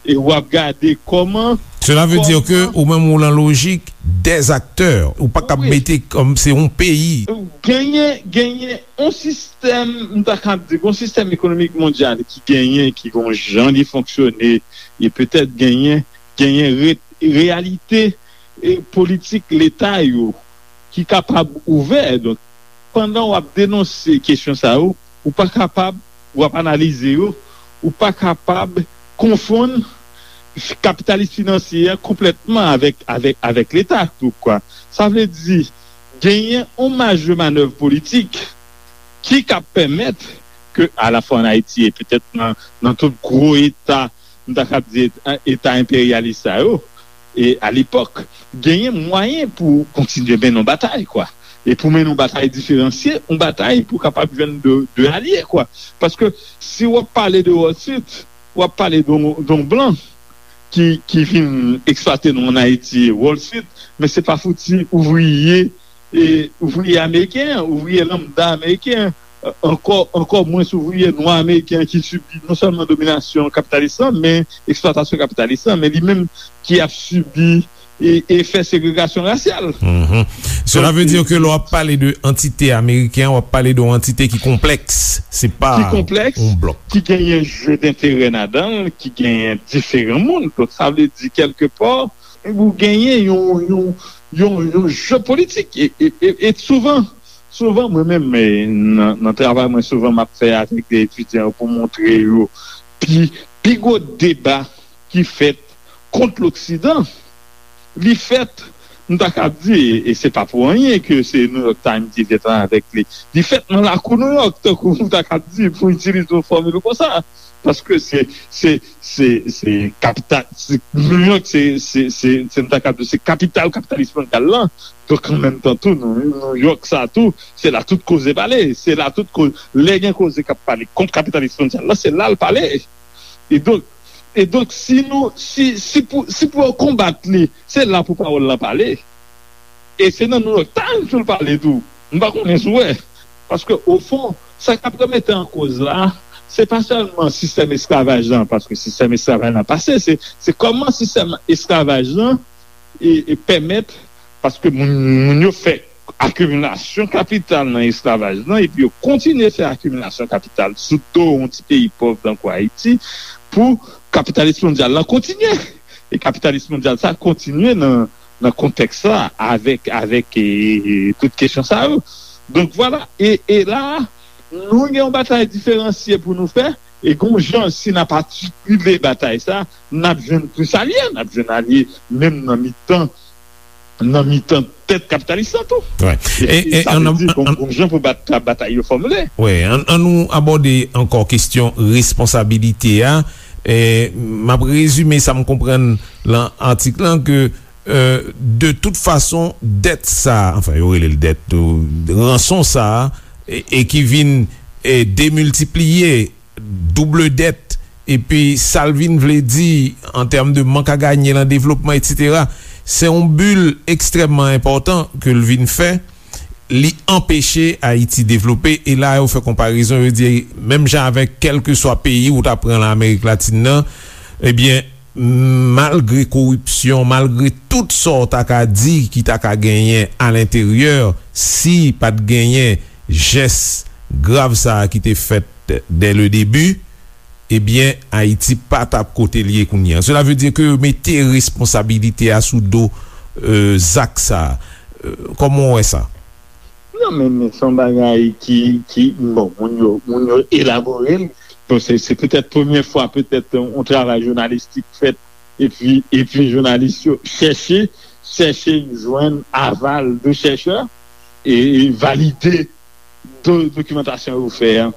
E w ap gade kòman, Cela veut dire que kòman ou menm ou lan lojik des acteurs, ou pa kab Wi. mete kòm se yon peyi. Genyen, genyen yon sistèm, m ta kab di, yon sistèm ekonomik mondyal ki genyen, ki gon jan li fonksyone, e petèt genyen, genyen re-, reyalite, e, politik Leta yo ki kapab ouvè. Donk, pandan w ap denonse kesyon sa yo, ou pa kapab, w ap analize yo, ou pa kapab konfonn kapitalis finansye a konplètman avèk, avèk, avèk Leta tou, kwa. Sa vle di, genyen yon maj de manèv politik ki ka pèmèt ke, alafwa ann Ayiti e petèt nan, nan tout gwo eta, m ta kab di eta, eta enperyalis sa yo, e alepòk, genyen mwayen pou kontinye mennen yon batay, kwa. E pou mennen yon batay diferansye, yon batay pou kapab jwenn de, de alye, kwa. Paske si w ap pale de Wall Street, w ap pale de yon, de yon blan ki, ki vin eksplwate nou ann Ayiti, Wall Street, men se pa fouti ouvriye, e, ouvriye ameriken an, ouvriye lanmda ameriken an, ankò, ankò mwens ouvriye nwa ameriken an ki sibi non sèlman dominasyon kapitalis lan, men eksplwatasyon kapitalis lan, men li menm ki ap sibi e, efè segregasyon rasyal. Mhm. Cela veut dire que lè w ap pale de antite ameriken, w ap pale de yon antite ki konplèks. Se pa ki konplèks, yon blòk. Ki genyen je denterè ladan l, ki genyen diferan moun. Donk, sa vle di, kèlkepò, ou genyen yon, yon, yon, yon je politik. E, e, e, e souvan, souvan, mwen menm, e, nan, nan travay mwen, souvan m ap fè avèk de etidyan pou montre yo pi, pi gwo deba ki fèt kont Loksidan, li fèt, m ta kab di, e, e se pa pou anyen ke se New York Times ki te travay avèk li, li fèt nan lakou New York, tankou m ta kab di, pou itilize yon fòmil konsa. Paske se, se, se, se kapital, se, New York, se, se, se, se, m ta kab di, se kapital kapitalis mondyal lan. Donk, an menm tan tou, New York sa tou, se la tout koze pale. Se la tout koze, lè gen koze k ap pale kont kapitalis mondyal lan, se la l pale. E donk, e donk, si nou, si, si pou, si pou yo konbat li, se la pou pawòl lan pale. E se nan New York Times pou l pale tou. M pa konnen si w wè. Paske, ofon, sa k ap remete an koz la, se pa sèlman sistèm esklavaj lan, paske sistèm esklavaj lan pase, se, se kòman sistèm esklavaj lan e, e pèmèt, paske moun, moun yo fè akimilasyon kapital nan esklavaj lan, epi yo kontinye fè akimilasyon kapital sou do yon ti peyi pòv tankou Ayiti, pou kapitalis mondyal lan kontinye. E kapitalis mondyal sa kontinye nan, nan kontèks sa, avèk, avèk, e, e, tout kesyon sa yo. Donk, vwala. E, e la, nou gen yon batay diferansye pou nou fè, e gon jan, si n ap atikile batay sa, n ap jwenn plis alye, n ap jwenn alye menm nan mitan, nan mitan tèt kapitalis lan tou. Wi. E, e, e sa vle di, gon, gon jan pou bat, batay yo fòmile. Wi, ann, ann nou abòde ankò kesyon responsabilite a. E, m ap rezime sa m konprann lan atik lan ke, e, de tout fason, dèt sa, anfen, yo rele l dèt tou, ranson sa, e, e ki vin, e, demiltipliye, double dèt, epi sa l vin vle di an tèm de mank a ganye lan devlopman, etsetera, se yon bil ekstrèmman enpòtan ke l vin fè. Li anpeche Ayiti devlope, e la yo fè konparezon, yo di, menm jan avèk kèlkeswa peyi ou ta pran lan Amerik Latin nan, ebyen, malgre koripsyon, malgre tout sa w ta ka di ki ta ka genyen alenteryè, si pa t genyen jès grav sa a ki te fèt dès le début, ebyen, Ayiti pa t ap kote l ye kounye a. Cela veut dire que yo mete responsabilite a sou do, euh, zak sa a. Euh, kòman w wè sa? Non, men, men se yon bagay ki, ki, bon, moun yo, moun yo elabore l. Bon, se, se petèt premye fwa, petèt, yon, yon travay jounalistik fèt, epi, epi jounalis yo chèche, chèche jwenn aval de chèchè, e, e valide do-, dokimantasyon yo fè a,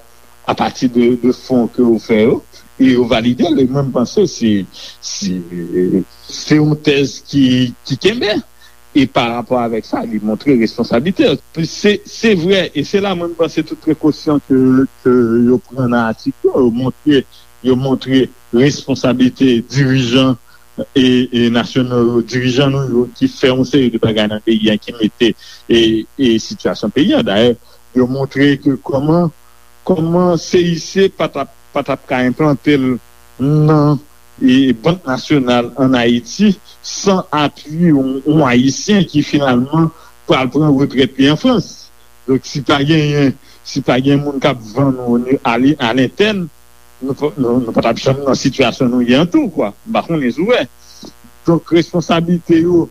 apati de, de fon ke yo fè yo, e yo valide l, e mwen, m panse se, se, se yon tèz ki, ki kenbe, e pa rapò avèk sa, li montre responsablite l. Se, se vre, e se la mwen, m panse tout prekosyon ke, ke yo pran nan atik yo, yo montre, yo montre responsablite dirijan e, e nasyonal yo, dirijan nou yo ki fè yon seri de bagay nan peyi a, ki mete, e, e sitiyasyon peyi a. Dayè, yo montre ke kòman, kòman C I C pa t ap, pa t ap ka enplante l nan, e, Bank Nasyonal ann Ayiti san apui yon, yon Ayisyen ki finalman pral pran retrèt li an Frans. Donk, si pa genyen, si pa gen moun k ap vann ou ni-, a li-, a lentèn, nou pa, nou, nou pa t ap janm nan sitiyasyon nou ye an tou, kwa. M pa konnen si w wè. Donk, responsablite yo,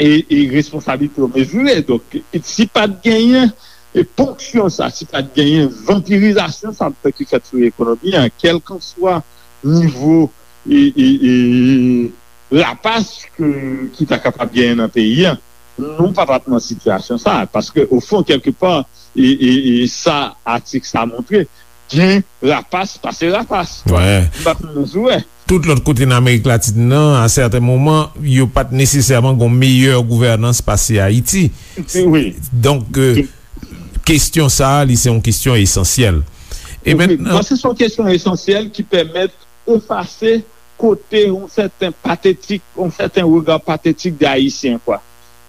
e, e responsablite yo mezire. Donk, e si pa t genyen, e ponksyon sa, si pa t genyen vanpirizasyon sa ki fèt sou ekonomi an, kèlkanswa nivo, e, e, e, rapas ke, ki ta kapab genyen nan peyi a, nou pa t ap nan sitiyasyon sa a. Paske, ofon, kèlkepa, e, e, e sa atik sa montre, gen rapas pase rapas. Wi. M pa konnen si w wè. Tout lòt kote nan Amerik Latin nan, a sèten moman, yo pa t nesesèman gon meyè gouvènans pase Ayiti. Wi. Donk, e, kesyon sa a, li se yon kesyon esansyèl. E wi, mentnan, paske se yon kesyon esansyèl ki pèmèt efase kote yon sèten patetik, yon sèten rega patetik de Ayisyen, kwa.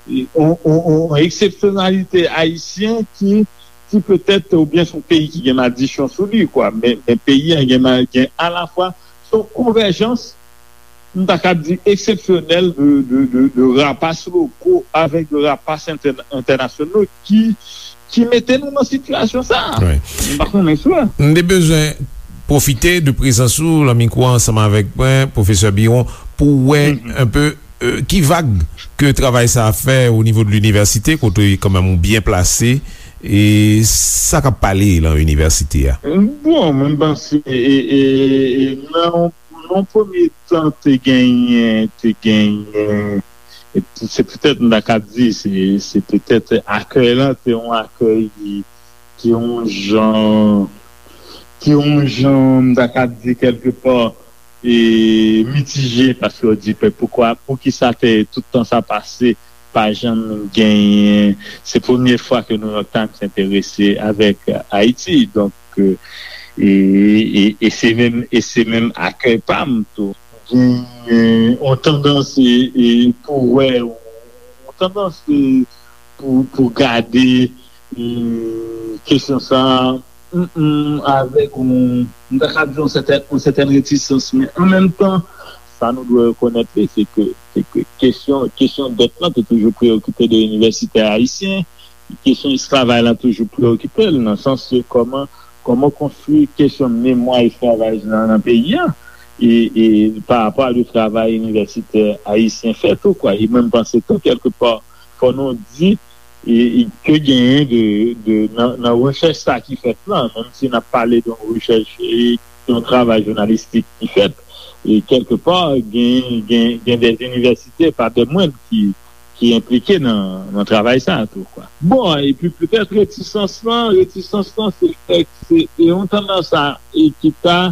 Yon, yon, yon eksepsyonalite ayisyen ki, ki petèt, oubyen se yon peyi ki gen madichon sou li, kwa. Men, men peyi a gen ma-, gen alafwa, se yon konvèjans, m ta kab di, eksepsyonèl de, de, de, de rapas loko avèk de rapas entè-, entènasyonal ki, ki mete nou nan sitiyasyon sa a. Wi. M pa konnen si w wè. M te bezwen pwofite de prezans ou lan mikwo ansanm avèk mwen, pwofesè Biron, pou wè, mhm, enpe euh, ki vag ke travay sa a fè o nivo de linivèsite, kote kanmenm ou byen plase, e sa k ap pale lan inivèsite a? Bon, mwen panse, e, e, e, nan, nan yon premye tan, te genyen, te genyen, e se petèt, m ta ka di, se, se petèt akèy lan, te yon akèy ki, ki yon jan, ki yon jan, m ta ka di, kèlkepa, e, mitije, paske yo di, "Pe-, poukwa, poukisa te, tout tan sa pase, pa janm genyen, se premye fwa ke New York Times enterese avèk Ayiti." Donk, e, e, e se menm, e se menm akèy pa m tou. Genyen yon tandans, e, e, pou wè, yon tandans, e, pou, pou gade, e, kesyon sa a, mm, mm, avèk yon, m ta ka di yon sètèn, yon sètèn retisans, men an menm tan, sa nou dwe rekonèt li, se ke, se ke kesyon, kesyon dèt lan te toujou preyokipe de inivèsitè ayisyen, kesyon esklavaj lan toujou preyokipe l, nan sans ke kòman, kòman konstwi kesyon memwa esklavaj lan nan peyi a, e, e pa rapò a de travay inivèsitè ayisyen fè tou, kwa. E mwen, m panse tou, kèlkepa, fò nou di, e, e ke genyen de, de, nan, nan rechèch sa ki fèt lan, menm si n ap pale de yon rechèch, e, yon travay jounalistik ki fèt, e kèlkepa, gen, gen, gen de inivèsite, pa de mwen, ki, ki enplike nan, nan travay sa a tou, kwa. Bon, epi petèt retisans lan, retisans lan, se fèk, se, se yon tandans a, e ki ta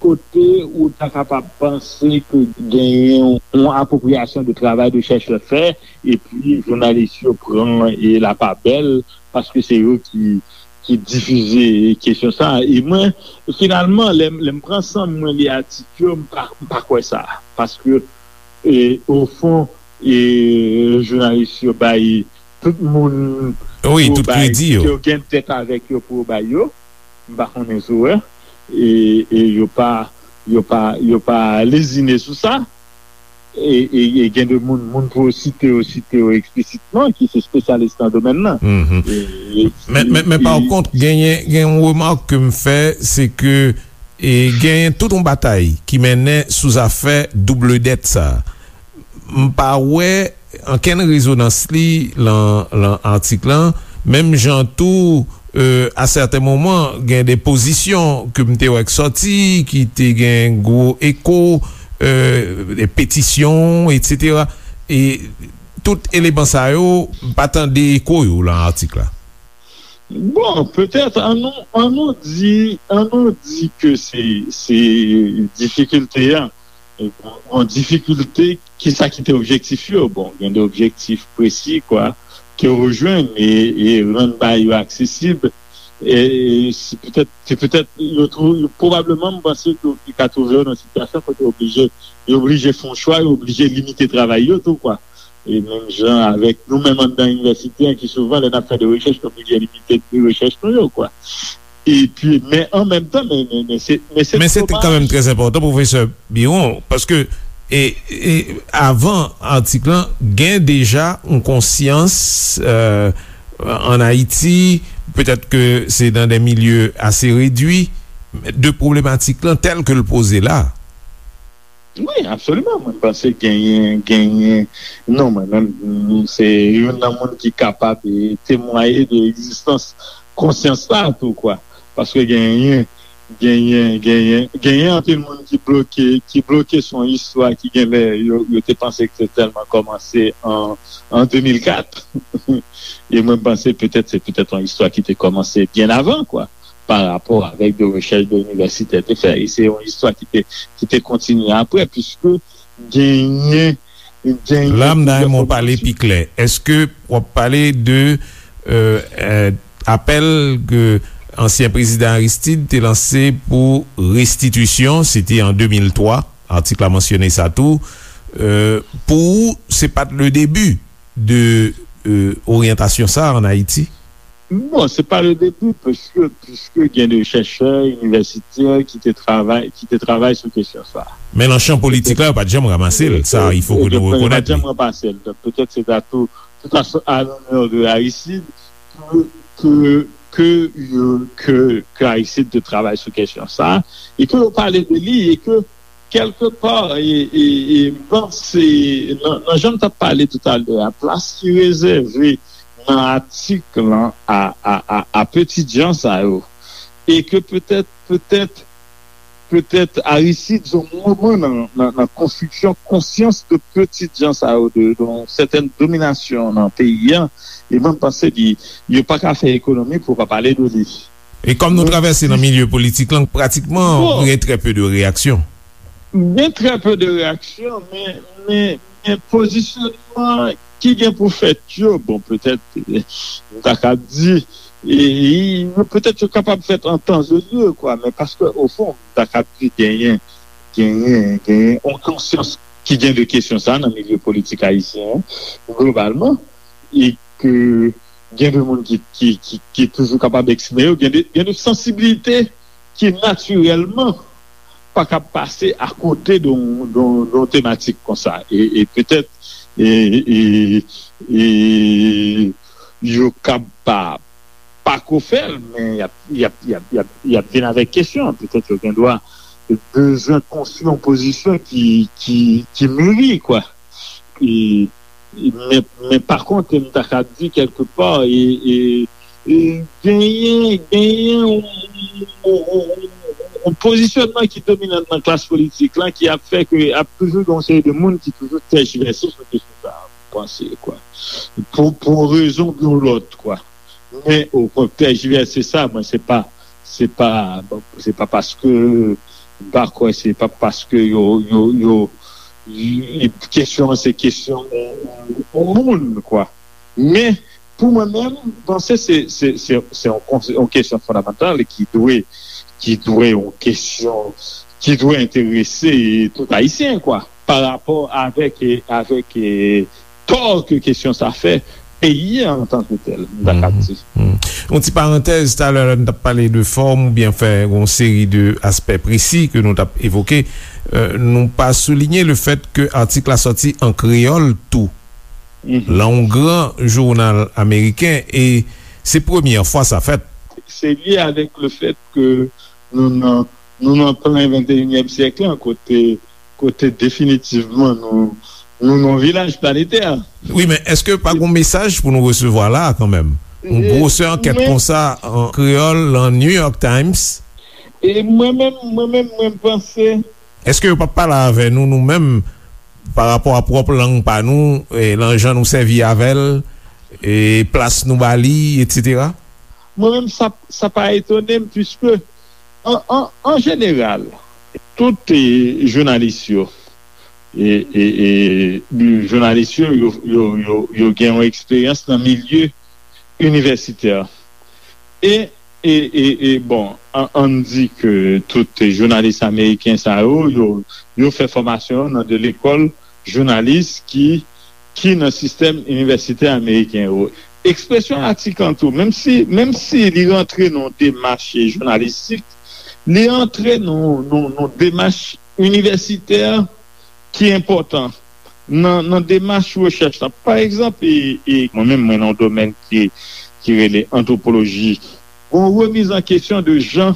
kote ou ta kapab panse ke genyen yon apwopriyasyon de travay de chèchè fè, epi jounalis yo pran e lapabèl, paske se yo ki, ki difize kesyon sa a. E mwen, finalman, lè, lè m pran san m, mwen li atik yo, m pa, m pa kwè sa. Paske, e, ofon, e, jounalis yo bay tout moun, wi, pou tout bay, kredi yo, ke yo gen dèt avèk yo pou yo bay yo. M pa konnen si w wè. E, e yo pa, yo pa, yo pa lezine sou sa. E, e, e gen de moun, moun pou yo site yo, site yo eksplisitman, ki se espesyalis nan domèn nan. Mhm. E, e, men, men, men, e, pa kont, genyen, gen yon remak ke m fè, se ke, e, genyen tout yon batay ki mennen sou zafè double dèt sa a. M pa wè ankenn rezonans li lan, lan atik lan, menm jan tou, e, a sèten moman, gen de pozisyon ke m te wè k sòti, ki te gen gwo eko, e, de petisyon, etsetera. E tout eleman sa yo, m pa tande eko yo lan atik la. Bon, petèt, an nou, an nou di, an nou di ke se, se difikilte a. E bon, yon difikilte, kisa ki te objektif yo? Bon, gen de objektif presi, kwa, ke yo jwenn e, e rann bagay yo aksesib. E, e se petèt, se petèt, yo twou-, yo pwobableman, m panse ke yo ka twouve yo nan sitiyasyon kote yo oblije, yo oblije fè yon chwa, yo oblije limite travay yo tou, kwa. E menm jan avèk nou menm anndan inivèsite an, ki souvan, lè n ap fè de rechèch, nou oblije limite rechèch nou yo, kwa. Epi, men an menm tan, men, men, men se, men se domaj. Men se kanmenm trè enpòtan, pwofesè Biron, paske, e, e, avan atik lan, gen deja yon konsyans, e, ann Ayiti, petèt ke se nan de milye ase redwi, de pwobletik lan tèl ke l poze la. Wi, absoliman. Mwen panse genyen, genyen, non, mwen menm, m, se youn nan moun ki kapab, e, temwaye de egzistans konsyans sa a tou, kwa. Paske genyen, genyen, genyen, genyen anpil moun ki bloke, ki bloke sou yon istwa ki genlè yo, yo te panse ke te tèlman kòmanse an, an de mil kat. E mwen panse petèt, se petèt yon istwa ki te kòmanse byen avan, kwa, pa rapò avèk de rechèch de inivèsitè te fè. E se yon istwa ki te, ki te kontinye apre, piske genyen, genyen plizyè fòmasyon. La, m ta renmen w pale pi klè. Èske w ap pale de, e, e, apèl ke ansyen prezidan Aristide te lanse pou restitisyon, se te an de mil twa, atik la mansyone sa tou, e, pou ou, se pa t le debi de, e, oryantasyon sa a ann Ayiti? Bon, se pa le debi, paske, piske gen de chèchè inivèsitè ki te travay, ki te travay sou kesyon sa a. Men nan chan politik la, yo pa t janm ranmase l, sa, il faut que nou rekonèt li. Yo pa t janm ranmase l. Donk, petèt se ta tou, tout à, à l'honneur de Aristide, ke, ke, ke, ke, ke Aristide te travay sou kesyon sa a, e ke yo pale de li, e ke kèlkepa, e, e, e, m panse, nan, nan jan m t ap pale toutalè a, plas ki rezève nan atik lan a, a, a, a petitjan sa yo, e ke petèt, petèt, petèt Aristide se yon moman nan, nan, nan konstriksyon konsyans de petitjan sa yo, de, de yon sètèn dominasyon nan peyi a, e mwen, m panse li, yo pa ka fè ekonomi pou yo pa pale de li. E kòm nou travèse nan milye politik lan, pratikman, gen trè pe de reyaksyon. Gen trè pe de reyaksyon, men, men, men pozisyonman ki gen pou fèt yo, bon, petèt, eh, m ta ka di, e, e, petèt yo kapab fèt an tan e lye, kwa, men paske, ofon, m ta ka di genyen, genyen, genyen yon konsyans ki gen de kesyon sa nan milye politik ayisyen an, globalman, e ke gen de moun ki, ki, ki, ki toujou kapab eksprime yo, gen de, gen de sansibilite ki natirèlman pa kab pase akote de yon, de yon, de yon tematik konsa. E, e petèt, e, e, e, yo kab pa, pa ko fè l, men y ap, y ap, y ap, y ap, y ap vin avèk kesyon. Petèt yo gen dwa bezwen konstwi yon pozisyon ki, ki, ki miri, kwa. E, men, men pa kont, m ta ka di kèlkepa, e, e, e genyen, genyen yon, yon, yon, yon pozisyonman ki dominan nan klas politik lan ki ap fè ke ap toujou gen yon seri de moun ki toujou tèjivèse sou kesyon sa a, m panse, kwa. Pou, pou yon rezon oubyen yon lòt, kwa. Men, o kontrè, tèjivèse sa, mwen, se pa, se pa, se pa paske, m pa kwè, se pa paske yo, yo, yo, y-, kesyon an, se kesyon yon, yon moun, kwa. Men, pou mwen menm, m panse se, se, se, se yon, yon kesyon fondamantal ki dwe, ki dwe yon kesyon, ki dwe enterese tout Ayisyen, kwa, pa rapò avèk, avèk, tò ke kesyon sa fè peyi a antanke tèl, m ta ka di. Yon ti parantèz, talè lè n t ap pale de fòm oubyen fè yon seri de aspè presi ke nou t ap evoke, euh, nou pa soulinye le fèt ke atik la sòti an kreyòl tou. Lan yon gran jounal ameriken, e se premyè fwa sa fèt. Se lye avèk le fèt ke nou nan, nou nan plen venteyinyèm syèk lan, kote, kote definitivman nou, nou nan yon vilaj planetè. Wi, men èske pa gon mesaj pou nou resevwa la a kanmenm? Yon gwosè ankèt konsa an kreyòl, lan New York Times? E mwen menm, mwen menm, mwen panse. Èske yo p ap pale avè nou, nou menm, pa rapò a pwòp lang pa nou, e, lan jan nou sèvi avè l, e plas nou ba li, etsetera? Mwen menm, sa, sa pa etone m, piske, an, an, an jeneral, tout, e, jounalis yo, e, e, e, jounalis yo, yo, yo, yo, yo gen yon eksperyans nan milye inivèsitè. E, e, e, e, bon, an, ann di ke tout jounalis ameriken sa yo, yo, yo fè fòmasyon yo nan de lekòl jounalis ki, ki nan sistèm inivèsitè ameriken yo. Ekspresyon atik lan tou, menm si, menm si li rantre nan yon demach jounalistik, li rantre nan, nan, nan demach inivèsitè ki enpòtan nan, nan demach rechèch la. Pa egzanp, e, e, mwen menm, mwen nan yon domèn ki, ki rele antwopoloji. Gon remiz an kesyon de jan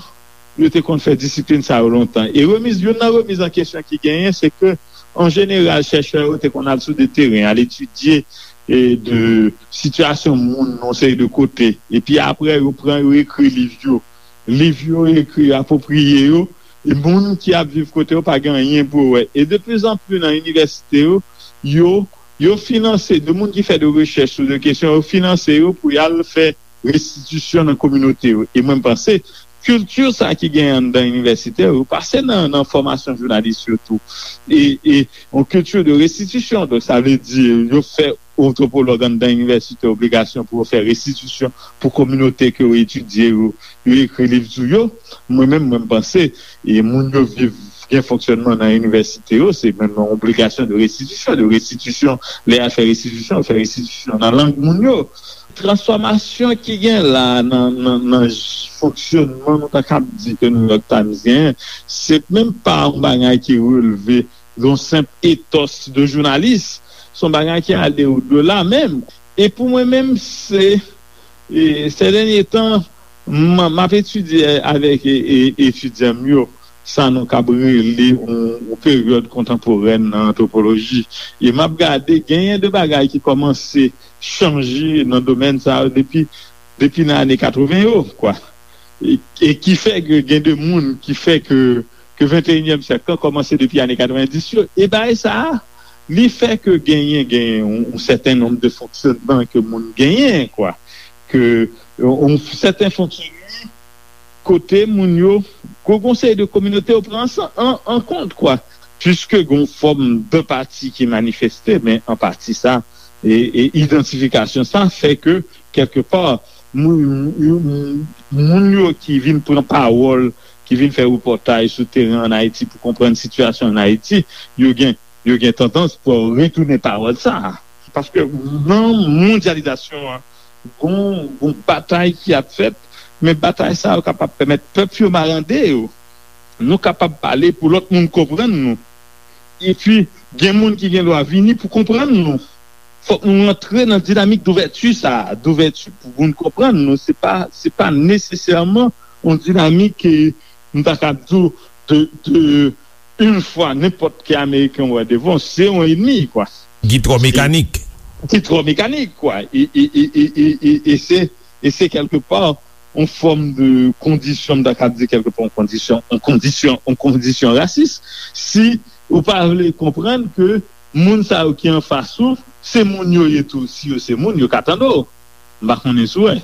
yo te konn fè disiplin sa yo lontan. E remiz, youn nan remiz an kesyon ki genyen, se ke, an jeneral, chèchè yo te konn al sou de teren, al etidye, e, de sitiyasyon moun nan yon seri de kote. Epi apre, yo pran, yo ekri liv yo. Liv yo ekri apwopriye yo, e moun ki ap viv kote yo pa gen anyen pou yo wè. E de pli zan pli nan inivèsite yo, yo, yo finanse, de moun ki fè de rechèch sou de kesyon, yo finanse yo pou y al fè restitisyon nan kominote yo. E mwen, m panse, kilti sa ki genyen anndan inivèsite yo, yo pase nan, nan fòmasyon jounalis yo tou. E, e yon kilti de restitisyon. Donk, sa vle di, yo fè antwopològ anndan inivèsite obligasyon pou yo fè restitisyon pou kominote ke yo etidye yo, yo ekri liv sou yo. Mwen menm, mwen, m panse, e moun yo viv, gen fonksyònman nan inivèsite yo, se menm yon obligasyon de restitisyon, de restitisyon, lè y al fè restitisyon, yo fè restitisyon nan lang moun yo. Transfòmasyon ki gen la nan, nan, nan j-, fonksyònman, nou ta kab di ke New York Times genyen, se menm pa yon bagay ki releve yon senp etòs de jounalis. Se yon bagay ki ale odela menm. E pou mwen menm, se, e, sè dènye tan, m, m ap etidye avèk, e, e, etidyan m yo. sa nou kab rele yon, yon peryòd kontanporèn nan antwopoloji. E m ap gade, genyen de bagay ki kòmanse chanje nan domèn sa yo depi, depi nan ane katreven yo, kwa. E, e ki fè ke gen de moun ki fè ke, ke venteyinyèm syèk lan kòmanse depi ane katrevendis yo. E bagay sa a, li fè ke genyen, genyen yon, yon sèten nonb de fonksyònman ke moun genyen, kwa. Ke yon, yon sèten fonksyònman kote moun yo, gon, gon seri de kominote yo pran an, an, an kont, kwa. Piske gon fòm de pati ki manifeste, men an pati sa, e, e idantifikasyon sa fè ke, kèlke pa, moun, moun, moun yo ki vin pran pawòl, ki vin fè repòtaj sou teren ann Ayiti pou konprann sitiyasyon ann Ayiti, yo gen, yo gen tandans pou retounen pawòl sa a. Paske nan mondyalizasyon an, gon, gon batay ki ap fèt, men batay sa yo kapab pèmèt pèp yo marande yo. Nou kapab pale pou lòt moun konprann nou. Epi, gen moun ki gen dwa vini pou konprann nou. Fòk nou rantre nan dinamik douvèti sa a, douvèti pou moun konprann nou. Se pa, se pa nesesèman yon dinamik, eh, m ta ka di w, de, de, yon fwa nenpòt ki Ameriken wè devan, se yon ènmi, kwa. Ki twò mekanik. Ki twò mekanik, kwa. E, e, e, e, e, e, e se, e se kèlke pa yon fòm de kondisyon, m ta ka di kèlke pa yon kondisyon, yon kondisyon, yon kondisyon rasis. Si ou pa vle konprann ke moun sa yo ki anfas ou, se moun yo ye tou. Si yo se moun, yo ka tande w. M pa konnen si w wè.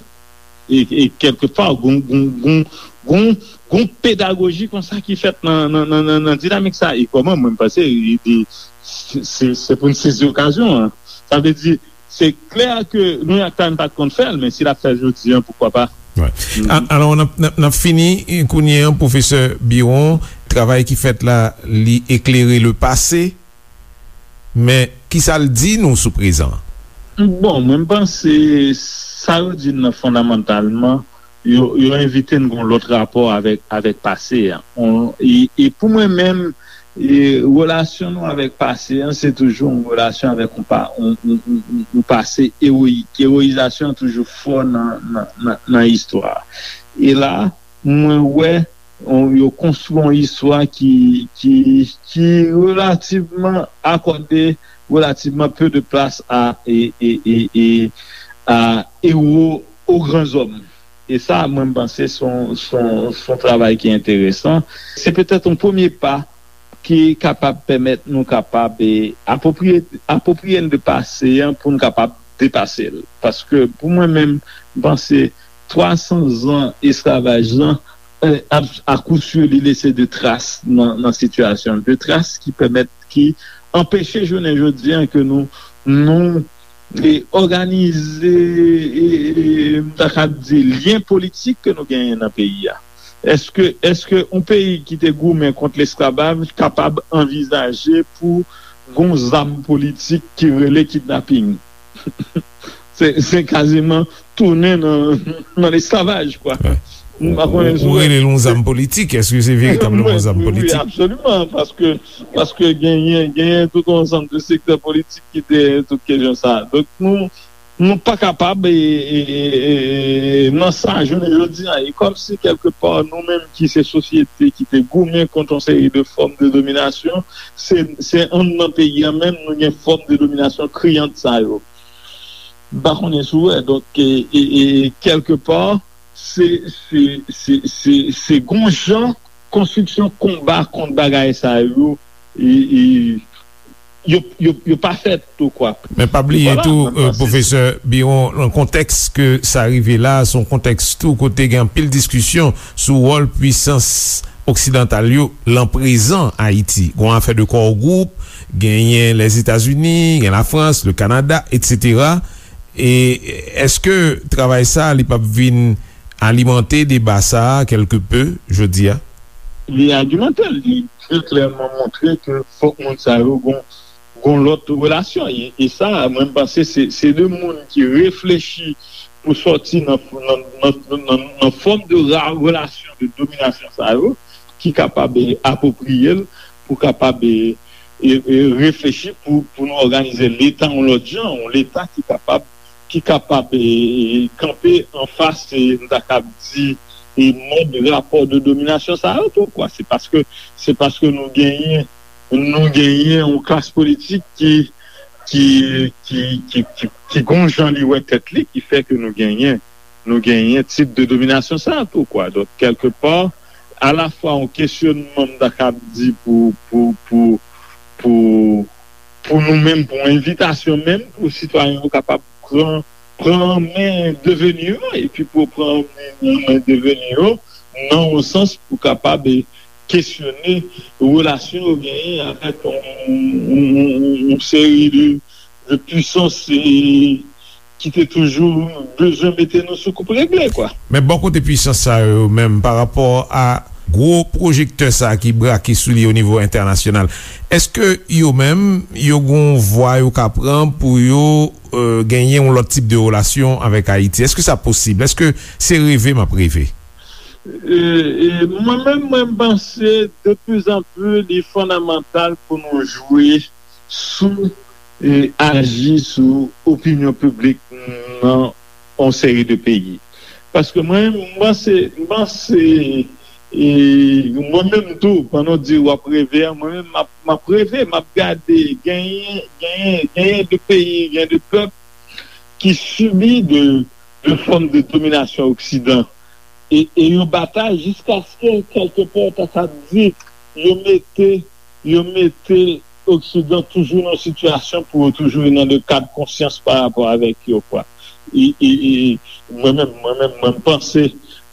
E, e kèlke pa, gon, gon, gon, gon, gon pedagoji konsa ki fèt nan, nan, nan, nan, nan dinamik sa. E kòman, mwen, m panse, e, e, se, se, se pou n sezi okazyon an. Sa vle di, se klè ke New York Times pa t konn fè l, men si l ap fè l jodi an, poukwa pa? Wè. A-, alò, n ap, n ap, n ap fini, eh, kounye an, pwofesè Biron, travay ki fèt la, li eklere le pase, men ki sa l di nou sou prezan an? Bon, mwen, m panse sa yo di n nan fondamantalman, yo, yo envite n gon lòt rapò avèk, avèk pase a. On, e, e pou mwen menm, e, relasyon nou avèk pase an, se toujou yon relasyon avèk yon pa-, yon, yon, yon, yon, yon pase ewoyik. Ewoyizasyon an toujou fò nan, nan, nan, nan istwa. E la, mwen wè, on, yo konstwi yon istwa ki, ki, ki relativman akòde relativman peu de place à, e, e, e, e, à héros, aux grands hommes. E sa, mwen, m panse se yon, se yon, se yon travay ki enteresan. Se petèt yon premye pa ki kapab pèmèt nou kapab, e, apwopriye, apwopriye n de pase an pou n kapab depase l. Paske pou mwen menm, m panse twa san zan esklavaj lan, e, a, a kou si, li lese de tras nan, nan sitiyasyon, de tras ki pèmèt, ki anpeche jounen jodi an ke nou, nou, e, òganize, e, e, m ta ka di, lyen politik ke nou genyen nan peyi a. Èske, èske yon peyi ki te goumen kont lesklavaj kapab anvizaje pou gon zam politik ki rele kidnaping? Se, se kaziman tounen nan, nan lesklavaj, kwa. Wè. M pa konnen si w wè. Ou rele l yon zam politik, èske se veritableman yon zam politik? Wi, wi, absoliman, paske, paske genyen, genyen tout yon ansanm de sektè politik ki dèyè tout kesyon sa. Donk, nou, nou pa kapab, e, e, e, e, nan sa, jounen jodi a, e kòmsi kèlke pa, nou menm ki se sosyete ki te goumen kont yon seri de fòm de dominasyon, se, se anndan peyi a menm, nou gen fòm de dominasyon kriyant sa yo. M pa konnen si w wè. Donk, e, e, e, kèlke pa, se, se, se, se, se gon jan konstriksyon konba kont bagay sa yo, e, e, yo, yo, yo pa fèt tou, kwa. Men pa bliye tou, e, pwofesè Biron, nan kontèks ke sa rive la, se yon kontèks tou kote gen anpil diskisyon sou wòl pwisans oksidantal yo lan prezan Ayiti. Gon afè de core group, genyen Lèzetazini, gen Lafrans, le Kanada, etsetera. E èske travay sa, li p ap vin alimante deba sa a kèlke pe jodi a? Li alimante l, li trè klèman montre ke fòk moun sa yo gon, gon lòt relasyon. E, e sa, mwen, m panse se, se de moun ki reflechi pou sòti nan, nan, nan, nan, nan fòm de ra-, relasyon de dominasyon sa yo, ki kapab, e, apwopriye l, pou kapab, e, e, e, reflechi pou, pou nou òganize Leta yon lòt jan, yon Leta ki kapab, ki kapab, e, e, kanpe anfas, e, m ta kab di, e mòd rapò de dominasyon sa yo tou, kwa. Se paske, se paske nou genyen, nou genyen yon klas politik ki, ki, ki, ki, ki, ki gon jan li wè tèt li, ki fè ke nou genyen, nou genyen tip de dominasyon sa tou, kwa. Donk, kèlkepa, alafwa yon kesyonman, m ta kab di, pou, pou, pou, pou, pou nou menm, pou yon envitasyon menm, pou sitwayen yo kapab pran, pran men deveni yo, epi pou pran men deveni yo, nan yon sans pou kapab, e, kesyone relasyon yo genyen avèk yon, yon, yon, yon seri de, de pwisans, e, ki te toujou bezwen mete nou sou koup regle, kwa. Men bò kote pwisans sa yo menm, pa rapò a gwo pwojektè sa ki brake sou li o nivo entènasyonal, èske yo menm, yo gon vwa yo ka pran pou yo, e, genyen yon lòt tip de relasyon avèk Ayiti? Èske sa posib? Èske se reve m ap reve? E, e, mwen menm, mwen, m panse de plus en plus, li fondamantal pou nou jwe sou, e, aji sou opinyon piblik nan yon seri de peyi. Paske mwen, m panse, m panse, e, mwen menm tou, pandan w di w ap reve a, mwen menm, m ap, m ap reve, m ap gade, genyen, genyen, genyen de peyi, genyen de pèp ki sibi de, de fòm de dominasyon Oksidan. E, e yo batay jiskaske, kèlkepè, ta sa di, yo mete, yo mete Oksidan toujou nan sitiyasyon pou yo toujou nan de kad konsyans pa rapò avèk yo, kwa. E, e, e, mwen menm, mwen menm, mwen m panse,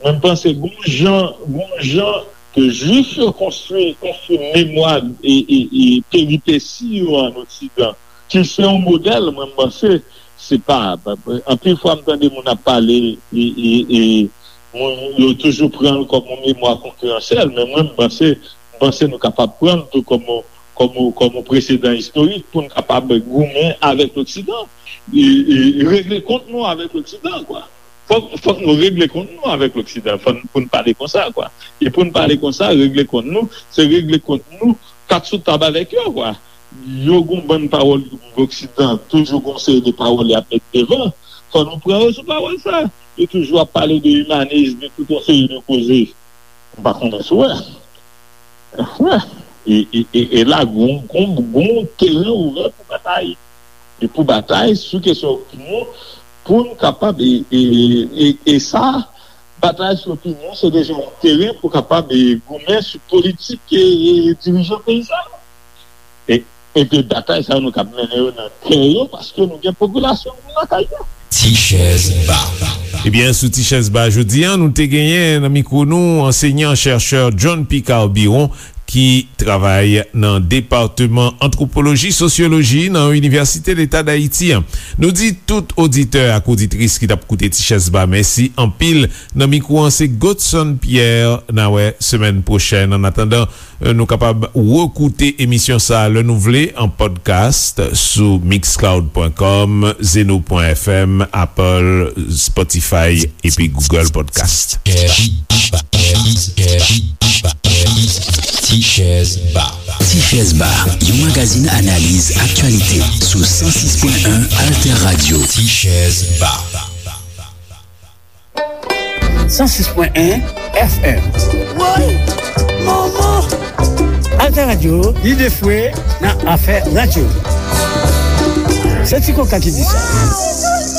mwen m panse gon jan, gon jan ke Jwif yo konstwi, konstwi memwa e, e, e peripesi yo an Oksidan, ki se yon modèl, mwen m panse, se pa, anpil fwa m tande moun ap pale, e, e, e, moun yo toujou pran l kòm yon memwa konkiransyèl, men mwen, m panse, m panse nou kapab pran l tou kòm yon, kòm yon, kòm yon presedan istorik pou n kapab goumen avèk Loksidan, e, e regle kont nou avèk Loksidan, kwa. Fòk, fòk nou regle kont nou avèk Loksidan, fòk pou n pale konsa, kwa. E pou n pale konsa, regle kont nou, se regle kont nou, kat sou tab avèk yo, kwa. Yo gon bann pawòl Loksidan, toujou gon seri de pawòl y ap met devan. Fò nou pran yo sou pawòl sa. Yo toujou ap pale de imanis, de tout yon seri de koze. M pa konnen si w wè. Wè. E, e, e, e la, gon, gon, gon teren ouvè pou batay. E pou batay sou kesyon opinyon, pou n kapab, e, e, e, e sa, batay sou opinyon, se deja yon teren pou kapab, e, goumen sou politik, e, e, dirijan peyi sa yo. E, epi batay sa yo, nou kab mennen yo nan kè yo, paske nou gen popilasyon nou lakay yo. Ti chèz ba. Ebyen, sou Ti chèz ba jodi a, nou te genyen nan mikwo nou ansenyan chèchè John Picard Biron, ki travay nan Depatman Antwopoloji Sosyoloji nan Inivèsite Leta Dayiti an. Nou di tout oditè ak oditris ki t ap koute Ti chèz ba mèsi anpil. Nan mikwo an, se Godson Pierre. N a wè semèn pwochèn. Annatandan, nou kapab rekoute emisyon sa a lè nou vle an podcast sou mixcloud pwen kòm, zeno pwen fm, Apple, Spotify epi Google Podcast. Ti chèz ba. Ti chèz ba, yon magazin analiz aktyalite sou san sis pwen en Alter Radio. Ti chèz ba. San sis pwen en F M. Woy! Manman! Alter Radio, lide fwe nan afè radyo. Se Ti Koka ki di sa.